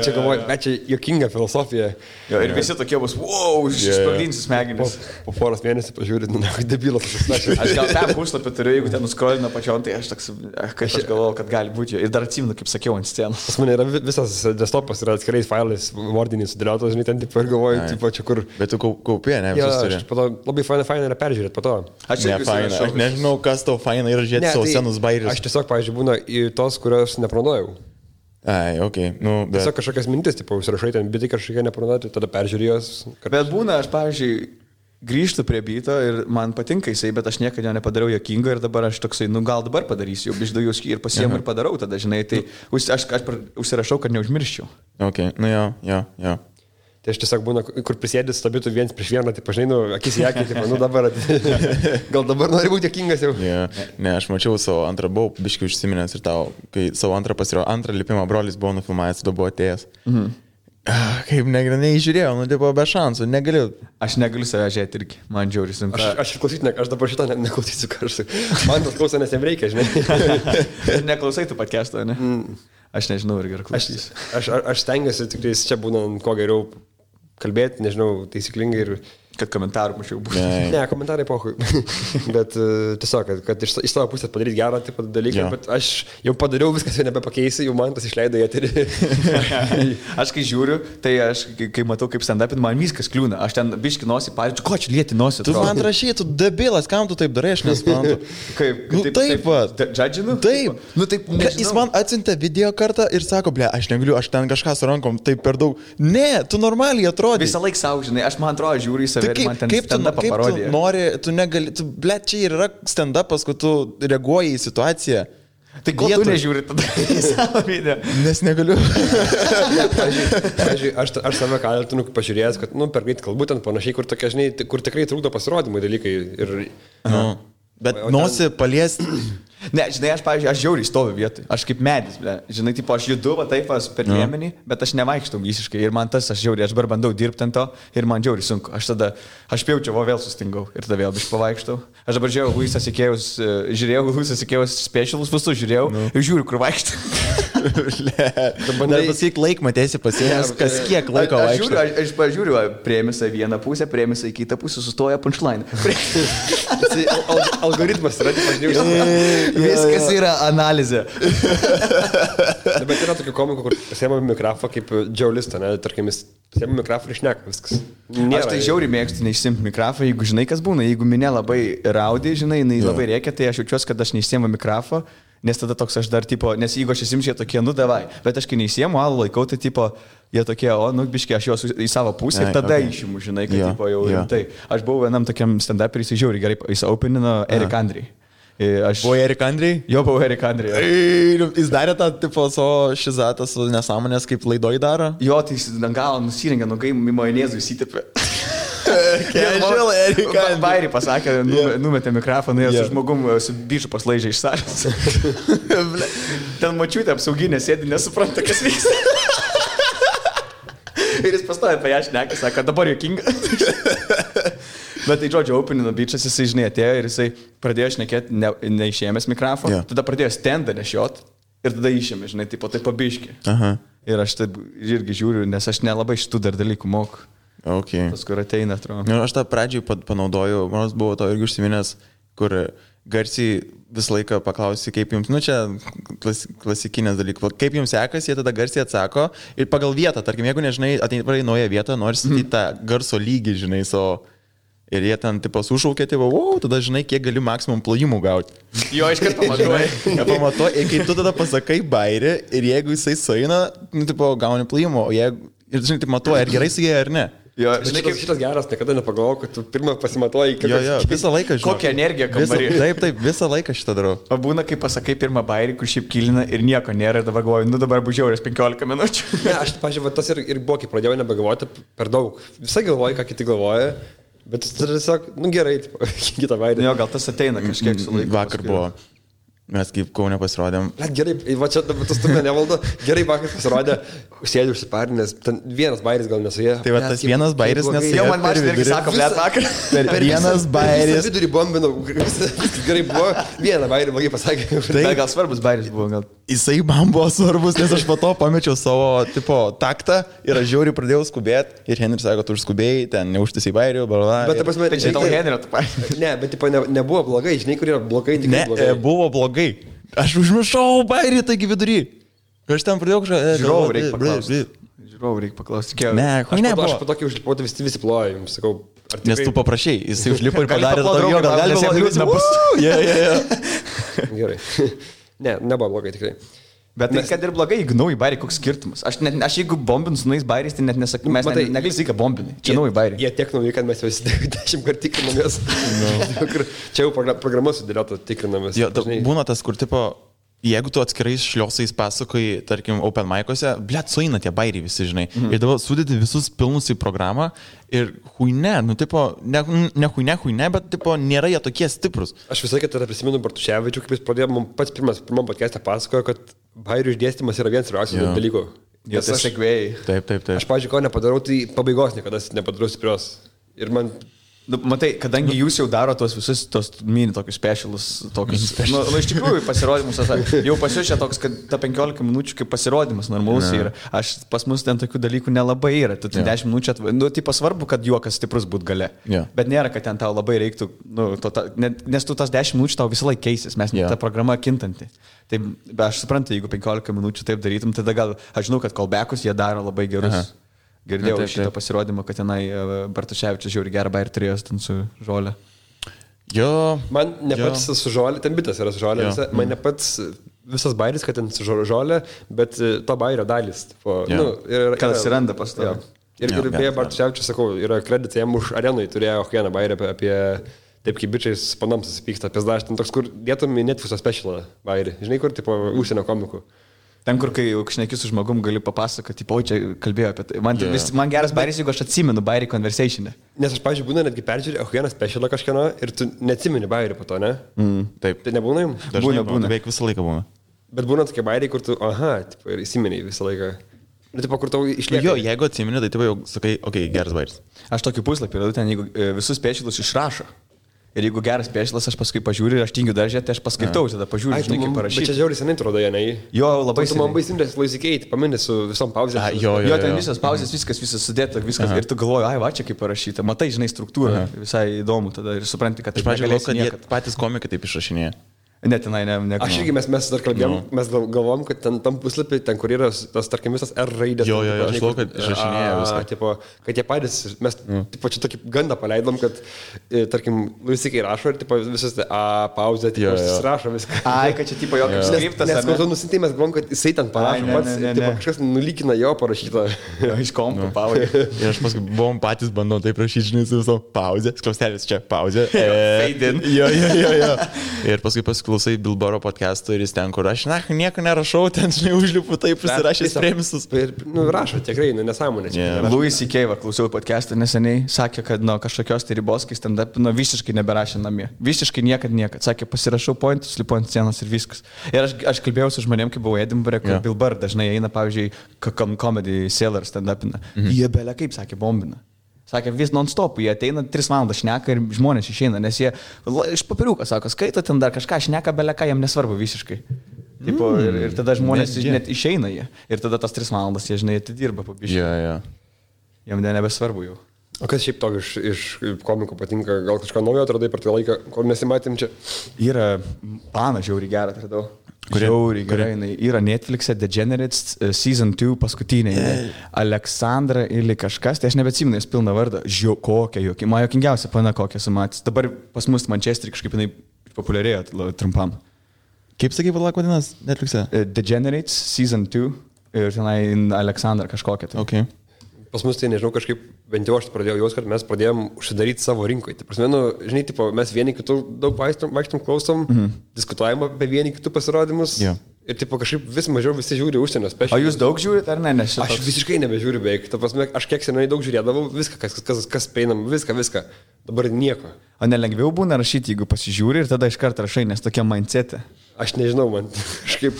čia galvoji, bet čia juokinga filosofija. Ir visi tokie bus, išsprogdinsi smegenis. Po poros mėnesių pažiūrėt, debilas. Aš gal tą puslapį turiu, jeigu ten nuskrolina pačion, tai aš toks, kaip aš galvoju, kad gali būti. Ir dar atsimenu, kaip sakiau, ant scenos. Pas mane yra visas desktopas, yra atskirais failais, vardiniais sudėliotas, žinai, ten, tipo, ir galvoju, tipo, čia kur. Bet tu kaupė, ne? Labai faina yra peržiūrėti po to. Aš nežinau, kas tau faina yra žiūrėti savo senus bairius. Aš tiesiog, pavyzdžiui, būna į tos, kurios neplanuojau. Tiesiog kažkokias mintis, tipo, užsirašai ten bitai kažkokie neplanuoti, tada peržiūrėjos. Bet būna, aš, pavyzdžiui, grįžtu prie bito ir man patinka jisai, bet aš niekada jo nepadariau juokingo ir dabar aš toksai, gal dabar padarysiu, jau bišdau ir pasiemu ir padarau tada, žinai, tai aš užsirašau, kad neužmirščiau. Jo. Tai aš tiesiog būna, kur prisėdės stabitų viens prieš vieną, tai pažinai, akis į akį, tai dabar, gal dabar nori būti juokingas jau. Ne, aš mačiau savo antrą, buvau biškai užsiminęs ir tau, kai savo antrą lipimą brolis buvo nufilmavęs, tada buvo atėjęs. Kaip neįžiūrėjau, tipo be šansų, negaliu. Aš negaliu save žiūrėti irgi, man džiaugiai sunku. Aš klausysiu, aš dabar šitą neklausysiu karštai. Man tas klauso, nes jam reikia, žinai. Neklausai tu podcast'o, ne? Aš nežinau, ar gerai klausysiu. Aš stengiuosi, tik čia būna kuo geriau kalbėti, nežinau, taisyklingai ir... Kad komentarų mačiau būtų. Ne, komentarai pohui. Bet tiesiog, kad iš savo pusės padaryti gerą tipo dalyką, bet aš jau padariau viskas, jau nebepakeisiu, jau man tas išleido į eterį. Aš kai žiūriu, tai aš kai matau kaip stand-upin, man viskas kliūna. Aš ten biški nosį, pavyzdžiui, ko čia lieti nosį? Tu man rašy, tu debilas, kam tu taip darai, aš nesuprantu. Kaip? Taip pat. Džadžinu? Taip. Taip, jis man atsiuntė video kartą ir sako, aš negaliu, aš ten kažką su rankom, taip per daug. Ne, tu normaliai atrodai. Visą laiką savo, žinai, aš man atrodo žiūriu į save. Kaip tu nori, tu negali, čia ir yra stand-upas, kad tu reaguoji į situaciją. Tai ko tu nežiūri tada į savo video? Nes negaliu. Pavyzdžiui, aš save kaltinu, pažiūrėjęs, kad, per greit kalbu ten panašiai, kur tokia, žinai, kur tikrai trukdo pasirodymai dalykai. Bet nosį paliesti. Ne, žinai, aš, pavyzdžiui, aš žiauriai stoviu vietoj. Aš kaip medis, ble. Žinai, tipo, aš judu, va taip, per liemenį, bet aš nevaikštau visiškai. Ir man tas, aš dabar bandau dirbti ant to ir man žiauriai sunku. Aš pjaučiau, vėl sustingau ir tada vėl biškai pavaikštau. Aš dabar žiūrėjau Luisas Ikėjus specialus, visus žiūrėjau ir žiūriu, kur vaikštau. Dabar pasakyk laiką, matėsi pasiėmęs, kas kiek laiko vaikštau. Aš pažiūriu, priėmėsi vieną pusę, priėmėsi kitą pusę, sustoja punchline. Algoritmas yra, pažiūrėjau. Viskas yra analizė. Bet yra tokių komikų, kur pasiėmė mikrofą kaip džiaulistą, ne? Tarkim, jis pasiėmė mikrofą ir šneka viskas. Aš tai žiauriai mėgstu neišsimti mikrofą, jeigu žinai, kas būna. Jeigu minė labai raudė, žinai, labai reikia, tai aš jaučiuosi, kad aš neišsiemu mikrofą, nes tada toks aš dar, tipo, nes jeigu aš įsimčiau tokie, nu davai, bet aš kai neįsiemu, alų laikau, tai, tipo, jie tokie, biškai, aš juos į savo pusę ir tada išimu, žinai, kad, tipo, jau rimtai. Aš buvau vienam tokiam stand-up ir jis žiauriai gerai, jis openino Eric Andre. Buvo Eric Andre? Jo, buvo Eric Andre. Jis darė tą, tipo, savo šizatą su nesąmonės, kaip laidoj daro? Jo, tai jis galą nusirengė, nugai majonėzų įsitepė. Casual Eric Andre. Bairį pasakė, numetė mikrofoną, su žmogum su biču paslaižė iš salės. Ten mačiutė apsauginė sėdi, nesupranta, kas vyksta. Ir jis pastoja apie ją šneka, sako, dabar juokinga. Bet tai, žodžiu, openino bičas, jisai, žinai, atėjo ir jisai pradėjo šnekėti neišėmęs mikrofoną, tada pradėjo standą nešiot ir tada išėmė, žinai, taip pabiški. Ir aš taip irgi žiūriu, nes aš nelabai šitų dar dalykų moku. Okay. Tas, kur ateina, atrodo. Aš tą pradžiai panaudoju, manos buvo to irgi užsiminęs, kur garsiai visą laiką paklausi, kaip jums, nu čia klasikinės dalykas, kaip jums sekasi, jie tada garsiai atsako ir pagal vietą, tarkim, jeigu nežinai, ateini naują vietą, nori statyti tą garso lygį, žinai, ir jie ten, tipo, sušaukė, tipo, tada žinai, kiek gali maksimum plojimų gauti. Jo, iš karto pamatuoji. Pamatuoji, ir kai tu tada pasakai bairį, ir jeigu jisai sueina, nu, tipo, gauni plojimų, o jeigu, ir žinai, taip matuoji, ar gerai su jie, ar ne. Jo, žinai, kaip šitas geras, niekada nepagalvojau, kad tu pirmą pasimatuoji, kad... Jo, visą laiką žinau. Kokią energiją kambarį. Taip, visą laiką šitą darau. O būna, kai pasakai pirmą bairį, kur šiaip kilina ir nieko nėra, ir dabar galvoju, nu dabar bus žiaurės 15 minučių. Ne, aš, pažiūrėjau, tas ir buvo, kai pradėjau nebegalvoti per daug. Visai galvoju, ką kiti galvoja, bet tiesiog, nu gerai, kitą bairį. Jo, gal tas ateina kažkiek su laiku. Vakar buvo. Mes kaip Kaune pasirodėm. Gerai, va čia tas turime nevaldo. Gerai, vakar pasirodė, sėdžiu užsiparinęs, ten vienas bairis gal nesuėjo. Tai va tas vienas bairis nesuėjo. Jau man mašina irgi sako, blėt, vakar. Per vienas bairis. Vidurį bombinau, gerai buvo, vieną bairį blogai pasakė. Tai gal svarbus bairis buvo, gal. Jisai man buvo svarbus, nes aš po to pamečiau savo, tipo, taktą ir aš žiauriai pradėjau skubėti. Ir Henris sako, tu užskubėjai, ten neužtisai bairių, bla. Bet, prasme, tai žinai, Henrio tu paėmė. Ne, bet, tipo, nebuvo blogai, žinai, kur yra blogai, tik blogai. Ne, buvo blogai. Aš užmiršau bairį, taigi vidury. Aš ten pradėjau kažką... Žiūrovų reikia paklausti. Žiūrovų reikia paklausti. Ne, aš po tokį užlipau, tai visi ploja, jums sakau. Tikrai... Nes tu paprašai, jisai užlipo ir padarė tokio, gal gali sėdėti. Gerai. Ne, nebuvo blogai tikrai. Bet tai, kad ir blogai, jeigu nauji bairiai, koks skirtumas. Aš jeigu bombinu su naujais bairiais, tai net nesakau, mes negali sakyti, kad bombinai. Čia nauji bairiai. Jie tiek nauji, kad mes jau 10 kartų tikrinamės. Čia jau programa sudėliota tikrinamės. Būna tas, kur tipo, jeigu tu atskirais šliosais pasakoji, tarkim, open mic'ose, blėt, sueina tie bairiai visi, žinai. Ir dabar sudėti visus pilnus į programą ir huine, nu tipo, ne huine, bet tipo, nėra jie tokie stiprus. Aš visai tada prisimenu Bartuševičių, kaip jis pradėjo, man pats pirmam podcast'e pasakojo, kad bairių išdėstymas yra vienas svarbiausių dalykų. Jo, tai sekvėjai. Taip. Aš, pavyzdžiui, ko nepadarau, tai pabaigos niekada nepadarau stiprios. Ir man... Matai, kadangi jūs jau daro tos visus, tos mini tokius specialus, tokius... iš tikrųjų pasirodymus, jau pasiušė toks, kad ta 15 minučių kaip pasirodymas normalus yra. Pas mus ten tokių dalykų nelabai yra. Tu ten 10 minučių nu, tai svarbu, kad juokas stiprus būt gale. Bet nėra, kad ten tau labai reiktų, nes tu tas 10 minučių tau visą laiką keisis, mes ta programa kintanti. Tai aš suprantu, jeigu 15 minučių taip darytum, tada gal, aš žinau, kad callbackus jie daro labai gerus. Girdėjau šitą pasirodymą, kad tenai Bartuševičius žiauri gerą bairį turėjo ten su žolė. Jo. Man ne pats su žolė, ten bitas yra su žolė, man ne pats visas bairis, kad ten su žolė, bet to bairio dalis. Kad atsiranda pas to. Ir beje, Bartuševičius, sakau, yra kreditai jam už arenui, turėjo vieną bairį apie taip kaip bičiais panams susipyksta, apie dažnį, toks, kur dėtum į Netflix'o specialą bairį. Žinai, kur, tipo, užsienio komikų. Ten, kur kai šneki su žmogum, gali papasakoti, tipo, čia kalbėjau apie tai. Man geras bairis, jeigu aš atsimenu bairį conversation'e. Nes aš, pavyzdžiui, būna netgi peržiūrėjau vieną specialą kažkieno ir tu neatsimeni bairį po to, ne? Taip. Tai nebūna jums? Būna. Beveik visą laiką būna. Bet būna tokie bairiai, kur tu, tipo, ir įsimeni visą laiką. Nu, tipo, kur tau išlieka. Jo, jeigu atsimeni, tai tu jau sakai, geras bairis. Aš tokį puslapį radau ten, jeigu visus specialus išrašo. Ir jeigu geras specialas, aš paskui pažiūriu ir aš tingiu daržę, tai aš paskaitau, tada pažiūriu, žinai, kaip parašyti. Bet čia žiauriai senai atrodo, ne? Jo, labai senai. Tu man baisimdės laisikeiti, paminė su visom pauzėm. Jo, ten visas pauzės, viskas sudėta, viskas. Ir tu galvoji, va čia kaip parašyta. Matai, žinai, struktūrą, visai įdomu tada ir supranti, kad tai negalėsi niekad. Patys komikai taip išrašinėja. Netinai, ne. Aš irgi mes dar kalbėjom, mes galvom, kad tam puslapį, ten kur yra tas, tarkim, visas R raidės. Jo, aš galvoju, kad išrašinėja viską. Tipo, kad jie patys, mes tipo, čia tokį gandą paleidom, kad, tarkim, Luisikai rašo ir tipo, visas pauzė, tipo, rašo viską. Ai, kad čia tipo jo kaip skriptas. Nes kol tu nusintai, mes galvom, kad jisai ten parašo pats, tipo, kažkas nulykina jo parašytą. Iš kompo pauzė. Ir aš paskui buvom patys bandom taip rašyti, žinai, su visom pauzė, skliaustelis čia, pauzė. Fade in. Jo. Ir paskui klausai Bilboro podcast'o ir jis ten, kur aš nieko nerašau, ten, žinai, užlipu taip užsirašęs premisus. Ir, rašo, tikrai, nesąmonė. Louis C.K. klausiau podcast'ą neseniai, sakė, kad nuo kažkokios tai ribos, kai stand-up, visiškai neberašė namie. Visiškai niekad. Sakė, pasirašau pointus, lipu ant scenos ir viskas. Ir aš kalbėjau su žmonėm, kai buvau Edinburgh, kur Bilbar dažnai eina, pavyzdžiui, comedy seller stand-upina. Jie belia kaip, sakė, bombina. Sakė, vis non-stop, jie ateina 3 valandas šneka ir žmonės išeina, nes jie iš papiriuką, sako, skaito ten dar kažką, šneka beleką, jam nesvarbu visiškai. Tipo, ir tada žmonės net išeina jie. Ir tada tas 3 valandas jie, žinai, atidirba po biškį. Jam nebesvarbu jau. O kas šiaip to iš komikų patinka, gal kažką naujo atradai per tą laiką, kol nesimatėm čia? Yra planą žiauriai gerą atradau. Žiauriai gerai, yra Netflix'e Degenerates Season 2 paskutinė. Aleksandra ili kažkas, tai aš nebeatsimenu, jis pilną vardą. Kokia jokia, man jokingiausia pana kokią sumatys. Dabar pas mus Manchesterį kažkaip jinai populiarėjo trumpam. Kaip sakai, valak vadinas Netflix'e? Degenerates Season 2 ir tenai Aleksandra kažkokia. Tai. Okay. Pas mus tai nežinau, kažkaip bent jau aš pradėjau jaus, kad mes pradėjom užsidaryti savo rinkoje. Tai prasme, žinai, tipo, mes vieni kitų daug vaikštom, klausom, diskutuojam apie vieni kitų pasirodymus. Ir tipo, kažkaip vis mažiau visi žiūri užsienio specialus. O jūs daug žiūrit ar ne? Aš visiškai nebežiūriu beveik. Ta prasme, aš kiek senai daug žiūrėdavau, viską, kas prieinam, viską. Dabar nieko. O nelengviau būna rašyti, jeigu pasižiūri ir tada iš karto rašai, nes tokia mindsetė. Aš nežinau, man kažkaip.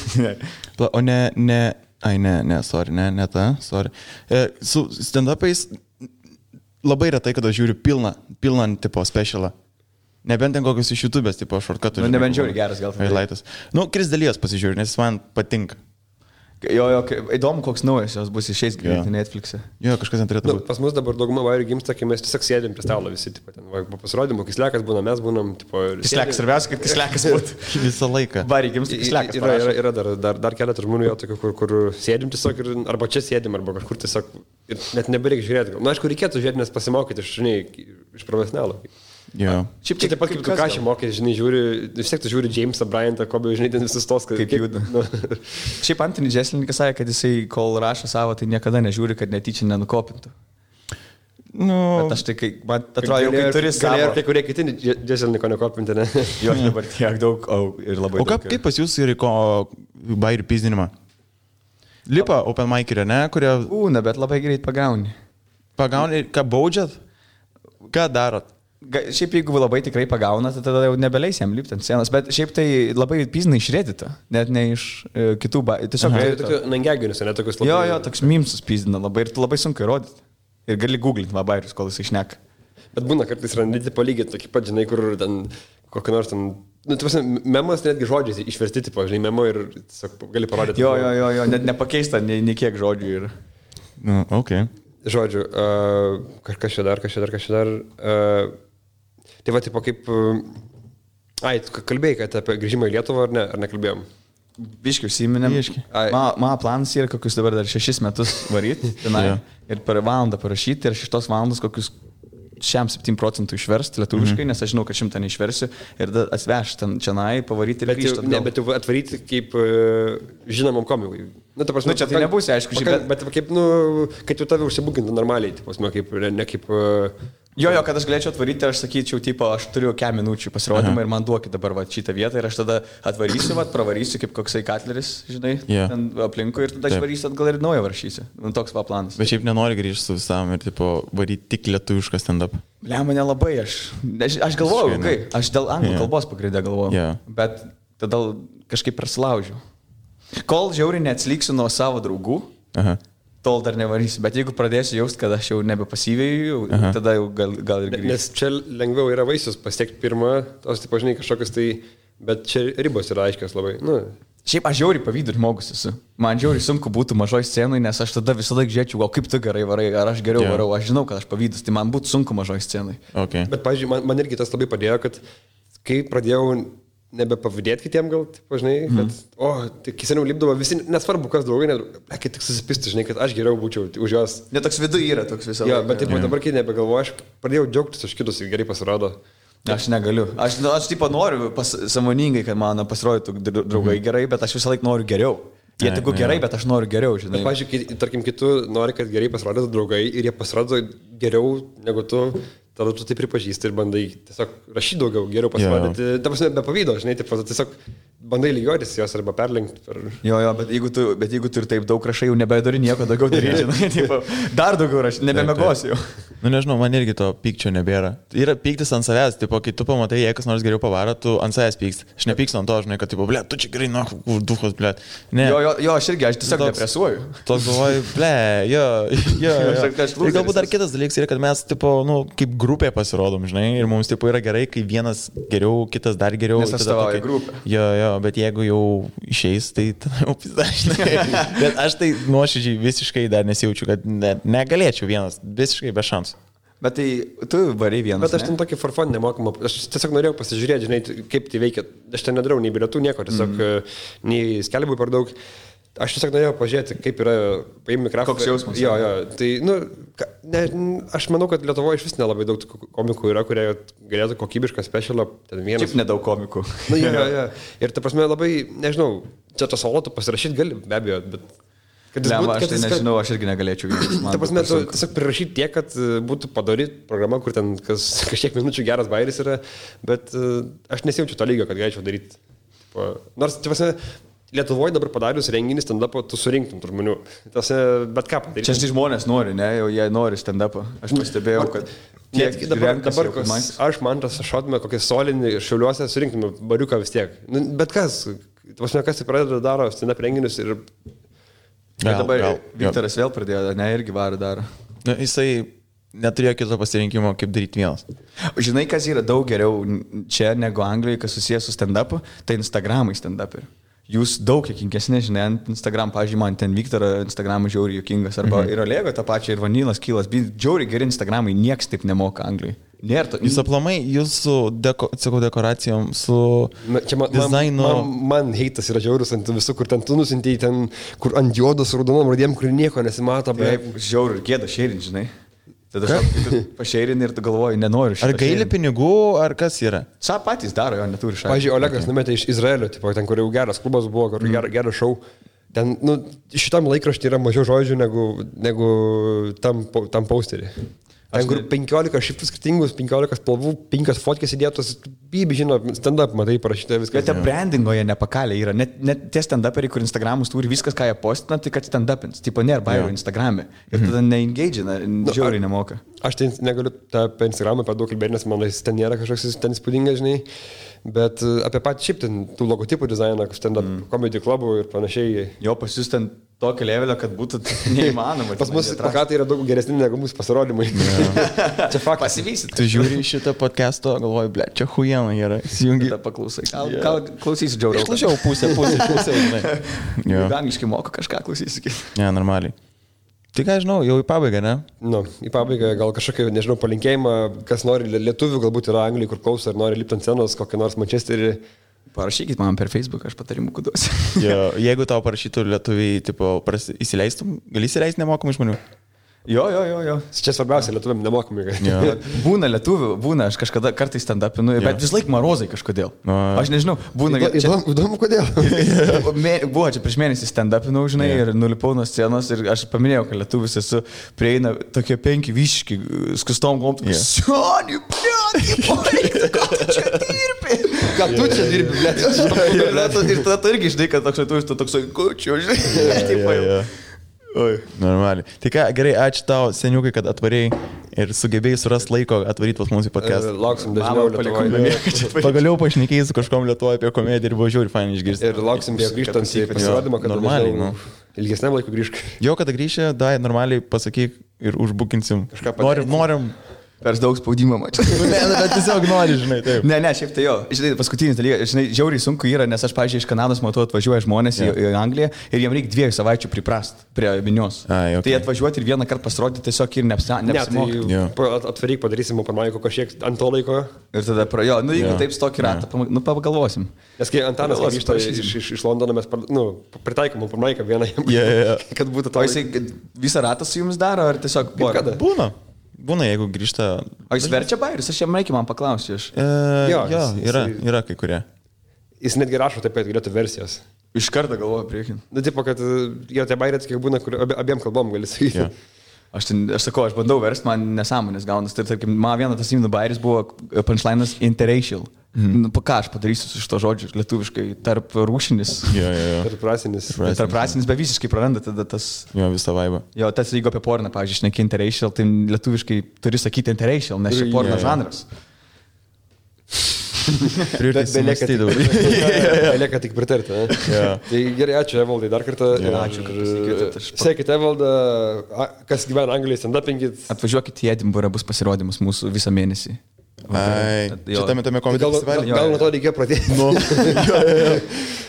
O ne, sorry. Su stand-upais labai retai, kada žiūriu pilną tipo specialą. Nebent ten kokius iš YouTube'ės, tipo shortcutų. Nebent žiūri geras gal. Highlightus. Kris Dalijos pasižiūriu, nes jis man patinka. Jo, įdomu, koks naujas jos bus išeis greitai Netflix'e. Jo, kažkas neturėtų būti. Pas mus dabar dauguma vairių gimsta, kai mes tiesiog sėdėm prie stalo visi, tipo, ten, po pasirodymo, Kislekas būna, mes būnam, tipo... Kislekas, svarbiausia, kad Kislekas būtų. Visą laiką. Vairių gimsta Kislekas. Yra dar keletą žmonių, jo, tokių, kur sėdim tiesiog, arba čia sėdim, arba kažkur tiesiog, ir net nebereikia žiūrėti. Na, aišku, reikėtų žiūrėti, nes pasimokyti iš profesionalo. Jo. Šiaip taip pat kaip tu ką čia mokė, žinai, žiūri, vis tiek tu žiūri Jamesą Bryantą, Kobe, žinai, ten visus tos, kaip juda. Šiaip Anthony Jeselnikas sakė, kad jisai, kol rašo savo, tai niekada nežiūri, kad netyčia nenukopintų. Bet aš tai, man atrodo, kai turi savo... Ir kai kurie kiti Jeselniko nekopinti, ne? Jo, dabar tiek daug, ir labai daug. O kaip pas jūs yra bairių pizdinimą? Lipa open mic'irė, ne? Kurie... Būna, bet labai greit pagauni. Pagauni, ką baudžiat? Ką darot? Šiaip jeigu labai tikrai pagauna, tai tada jau nebeleis jam lipti ant scenos, bet šiaip tai labai piznai išrėdita, net ne iš kitų tiesiog... Nangeginius, ne tokius labai... Jo, toks mimsus pizdina labai ir labai sunku įrodyti. Ir gali googlinti vabairius, kol jis išneka. Bet būna kartais randyti palygiai tokį pat, žinai, kur ten kokį nors ten... Memas netgi žodžiais išversti, tipo, žinai, memo ir tiesiog gali parodyti. Jo, net nepakeista nei kiek žodžių ir... Okay. Žodžiu, kažkas čia dar. Tai va, tipo, kaip... kalbėjai, kad apie grįžimą į Lietuvą ar nekalbėjom? Biškiai užsiminėm. Mano planas yra kokius dabar dar 6 metus varyti ir per valandą parašyti ir 6 valandas kokius 7% išversti lietuviškai, nes aš žinau, kad 100 neišversiu ir atsvežti ten čianai, pavaryti ir grįžti atgal. Bet jau atvaryti kaip žinomam komikui. Čia tai nebus, aišku, bet kaip, kad jau tave užsibukintų normaliai, ne kaip Jo, kad aš galėčiau atvaryti, aš sakyčiau, tipo, aš turiu 4 minučių pasirodymą ir man duokit dabar va, šitą vietą ir aš tada atvarysiu, va, pravarysiu kaip koksai Katleris, žinai, ten aplinkui ir tada aš varysiu atgal ir naują varšysiu. Toks va planas. Bet šiaip nenori grįžti su visam ir, tipo, varyti tik lietuvišką stand-up. Mane labai, aš galvoju, aš dėl anglų kalbos pagrindę galvoju, bet tada kažkaip prasilaužiu. Kol žiauriai neatsliksiu nuo savo draugų, tol dar nevarysiu, bet jeigu pradėsiu jausti, kad aš jau nebepasyvėjau, tada jau gal ir grįžti. Nes čia lengviau yra vaisius pasiekti pirmą, tos, tipo, žinai, kažkokius tai, bet čia ribos yra aiškios labai. Nu. Šiaip aš žiauriai pavydu žmogus esu. Man žiauriai sunku būtų mažoj scenui, nes aš tada visą laiką žiūrėčiau, o kaip tu gerai varai, ar aš geriau varau, aš žinau, kad aš pavydus, tai man būtų sunku mažoj scenui. Okay. Bet, pavyzdžiui, man irgi tas labai padėjo, kad kai pradėjau nebepavydėti kitiem gal, tipo, žinai, kad, tai kai seniau lipdavo visi, nesvarbu, kas draugai, kai tik susipisti, žinai, kad aš geriau būčiau už juos. Ne, toks vidu yra, toks visą laiką. Jo, bet taip, dabar kai nebegalvoju, aš pradėjau džiaugtis už kitus, gerai pasirodo. Aš negaliu. Aš tipo noriu sąmoningai, kad man pasirodytų draugai gerai, bet aš visą laiką noriu geriau. Jie tik gerai, bet aš noriu geriau, žinai. Bet, pavyzdžiui, tarkim, kitų nori, kad gerai pasirodytų draugai ir jie pasirodo geriau negu tu. Tada tu tai pripažįsti ir bandai tiesiog rašyti daugiau, geriau pasirodyti. Ta prasme, be pavydo, žinai, tiesiog bandai lygiuotis jos arba perlenkti. Jo, bet jeigu tu ir taip daug rašai, jau nebedari nieko daugiau daryti, žinai, tipo, dar daugiau rašai, nebemegosiu jau. Nu nežinau, man irgi to pykčio nebėra. Yra pyktis ant savęs, tipo, kai tu pamatai, jei kas nors geriau pavaro, tu ant savęs pyksti. Aš nepykstu ant to, žinai, kad, tipo, ble, tu čia gerai, duhos, ble. Jo, aš tiesiog depresuoju. Toks galvoju, ble, jo. Ir galbūt dar kitas dalykas yra, kad mes, tipo, nu, kaip grupė pasirodom, žinai, ir mums, tipo, yra gerai, kai vienas geriau, kitas dar geriau. Nes atstovauja grupę. Jo, bet jeigu jau išeis, tai tada jau pizdažnai. Bet aš tai nuoširdžiai visiškai dar nesijaučiu, kad negalėčiau vienas, visiškai be šansų. Bet tai tu variai vienas. Bet aš ten tokį forfon nemokamą, aš tiesiog norėjau pasižiūrėti, žinai, kaip tai veikia. Aš ten nedarau nei bilietų, nieko, tiesiog nei skelbų per daug. Aš tiesiog norėjau pažiūrėti, kaip yra paimti mikrofoną. Koks jausmas? Jo, tai, aš manau, kad Lietuvoje iš vis nelabai daug komikų yra, kurie galėtų kokybišką specialą. Šiaip nedaug komikų. Jo. Ir ta prasme labai, nežinau, čia tas solotų pasirašyti gali, be abejo, bet... Aš tai nežinau, aš irgi negalėčiau. Ta prasme, tu tiesiog prirašyti tiek, kad būtų padaryti programa, kur ten kažkiek minučių geras bairis yra, bet aš nesijaučiu to lygio, kad galėčiau daryti. Nors, ta prasme, Lietuvoje dabar padarius renginį stand-upą, tu surinktum tų žmonių. Bet ką padaryti? Čia žmonės nori, ne? Jau jie nori stand-upą. Aš pastebėjau, kad... Dabar aš, Mantas, šotume kokį solinį Šiauliuose, surinktume bariuką vis tiek. Bet kas? Ta prasme, kas tai pradeda daro stand-up renginius ir... Dabar Viktoras vėl pradėjo, ne, irgi varą daro. Jisai neturėjo kito pasirinkimo, kaip daryti vienas. Žinai, kas yra daug geriau čia negu Anglijoje, kas susijęs su stand-upu, tai Instagramai stand-up yra. Jūs daug juokingesni, žinai, ant Instagram, pavyzdžiui, man ten Viktorą Instagramą žiauriai juokingas, arba ir Olego tą pačią, ir Vanilas, Kylas, žiauriai geri Instagramai, nieks taip nemoka Anglijoje. Jūs aplamai, jūsų dekoracijom, su dizainu... Man heitas yra žiaurus ant visų, kur ten tu nusintėjai, ten, kur ant juodos raudonom radėm, kur nieko nesimato. Žiauriai, gėda šėrin, žinai. Tada pašeirini ir tu galvoji, nenoriu šitą. Ar gaili pinigų, ar kas yra? Sa patys daro, jo neturi šalia. Pavyzdžiui, Olegas numetė iš Izraelio, tipo, ten, kur jau geras klubas buvo, kur geras šou. Ten, šitam laikraštį yra mažiau žodžių negu tam posterį. Ten, kur 15 šifrų skirtingus, 15 spalvų, 5 fotkės įdėtos, bibi, žino, stand-up, matai, parašyta viskas. Bet tie brandingoje nepakalė yra, net tie stand-uperiai, kur Instagramus turi viskas, ką jie postina, tai kad stand-upins, tipo nėra bairo Instagram'e. Ir tada neengagina, žiauriai nemoka. Aš tai negaliu apie Instagramą per daug kalbėti, nes man ten nėra kažkoks ten įspūdingas, žinai. Bet apie patį šiaip ten tų logotipų dizainą, stand-up comedy klubų ir panašiai. Jo, pas jūs ten tokio levelio, kad būtų neįmanoma. Pas mus plakatai yra daug geresni negu mūsų pasirodymai. Čia faktas. Pasivysit. Tu žiūri šitą podcast'o, galvoji, ble, čia huijena yra. Įsijungi. Tada paklausai. Gal klausysi džiauriau. Išklausau pusę, žinai. Angliškai moka kažką klausysi. Ne, normaliai. Tai ką, žinau, jau į pabaigą, ne? Į pabaigą gal kažkokį, nežinau, palinkėjimą, kas nori lietuvių, galbūt yra Anglijai, kur klauso, ar nori lipti ant scenos, kokią nors Manchesterį. Parašykit man per Facebook, aš patarimų kuduosiu. Jeigu tau parašytų lietuviai, tipo, įsileistum, gali įsileisti nemokamai žmonių? Jo. Čia svarbiausia, lietuviam nemokamai. Jo. Būna lietuvių, būna, aš kažkada kartais stand-upinu, bet vis laik marozai kažkodėl. Aš nežinau, būna... Įdomu, kodėl. Buvo čia prieš mėnesį stand-upinau, žinai, ir nulipau nuo scenos ir aš paminėjau, kad lietuvis esu, prieina tokie 5 vyški, skustom gomtų. Sioni, blėt, ką tu čia dirbi? Ką tu čia dirbi, blėt? Ir tada tu irgi žinai, kad toks lietuvis, tu toks, kučiu, žinai. Oi. Normaliai. Tai ką, gerai, ačiū tau, seniukai, kad atvarėjai ir sugebėjai surasti laiko atvaryti pas mūsų podcast. Lauksim dažniau Lietuvoje. Pagaliau pašnekėjai su kažkom Lietuvoje apie komediją ir buvo žiūri, fainai išgirsti. Ir lauksim grįžtant į pasirodymą, kad normaliai, ilgesniam laikui grįžk. Jo, kada grįžė, normaliai pasakyk ir užbukinsim. Kažką norim. Per daug spaudimo mačiau. Ne, bet tiesiog nori, žinai, taip. Ne, šiaip tai jo. Žinai, paskutinis dalykas, žinai, žiauriai sunku yra, nes aš, pavyzdžiui, iš Kanados matau, atvažiuoja žmonės į Angliją ir jiems reikia 2 savaičių priprast prie minios. Okay. Tai atvažiuoti ir vieną kartą pasirodyti tiesiog ir neapsimoka. Atvaryk, padarysim Openmic'o kažkiek ant to laiko. Ir tada jeigu taip stokį ratą, pagalvosim. Nes kai Antanas grįžta iš Londono, mes pritaikom Openmic'ą vieną, kad būtų to. O jisai visą ratą su jums daro, ar tiesiog Būna, jeigu grįžta... O jis verčia bairius, aš jam reikia man paklausti. Yra kai kurie. Jis netgi rašo taip, kad galėtų versijas. Iš karto galvoju priekin. Tipo, kad jo tie bairės, kiek būna, kur abiem kalbom gali sakyti. Aš sakau, aš bandau versti, man nesąmonės gaunas. Tai, tarkim, man vienas tas įmynų bairis buvo punchline'as interracial. Ką aš padarysiu su šito žodžiu lietuviškai, tarp rūšinis. Tarp rasinis, bet visiškai praranda tada tas... Jo, visą vaibą. Jo, tas jeigu apie porną, pavyzdžiui, šneki interracial, tai lietuviškai turi sakyti interracial, nes čia porno žanras. Belieka tik pritarti. Tai gerai, ačiū Evaldai dar kartą. Ačiū, kad pasikėtėte. Sekite Evaldą, kas gyvena Anglijoje, stand-upinkit. Atvažiuokit į Edinburgą, bus pasirodymas mūsų visą mėnesį. Šitame komedijos festivalyje. Gal nuo to reikėjo pradėti.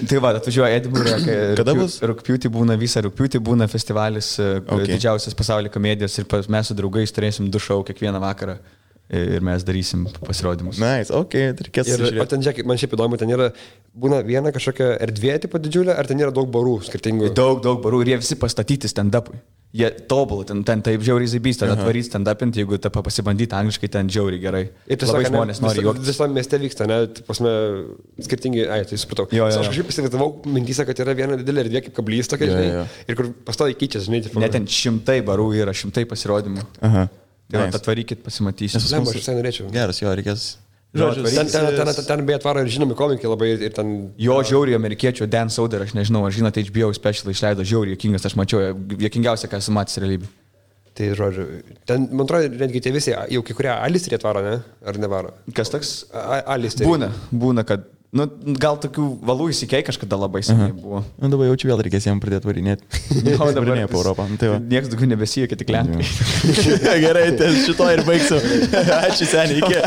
Tai va, atvažiuoja Edinburgą. Kada bus? Rugpjūtį būna festivalis, didžiausias pasaulio komedijos ir mes su draugais turėsim 2 šou kiekvieną vakarą. Ir mes darysim pasirodymus. Nice, reikės žiūrėti. O ten, žiūrėk, man šiaip įdomu, ten yra, būna viena kažkokia erdvė tipo didžiulė, ar ten yra daug barų skirtingų? Daug barų ir jie visi pastatyti stand-upui. Jie tobulą, ten taip žiauriai zaibys, tada atvarys stand-upinti, jeigu tą pasibandyti angliškai, ten žiauriai gerai. Ir tiesiog žmonės nori juoktis. Visam mieste vyksta, ne, pasme, skirtingi, tai supratau. Aš kažkaip įsivaizdavau mintyse, kad yra viena didelė erdvė kaip kablys tokia, žinai, ir kur pastoviai keičiasi, žinai. Ne, ten 100 barų yra, 100 pasirodymų. Tai atvarykit, pasimatysit. Aš visai norėčiau. Geras, jo, reikės. Ten beje atvaro ir žinomi komikai labai ir ten... Jo, žiauriai amerikiečio Dan Soder, aš nežinau, ar žinote, HBO special išleido žiauriai juokingas, aš mačiau, juokingiausia, ką esu matęs realybė. Tai žodžiu, ten, man atrodo, netgi tie visi, jau kai kurie alistrį atvaro, ne? Ar nevaro? Kas toks? Alistrį. Būna, kad... Nu, gal tokių valų įsikei kažkada labai seniai buvo. Nu, dabar jaučiu vėl reikės jiems pradėti varinėti. O dabar ne po Europą. Niekas daugiau nebesijokia, tik lenkai. Gerai, šito ir baigsiu. Ačiū seniai, iki.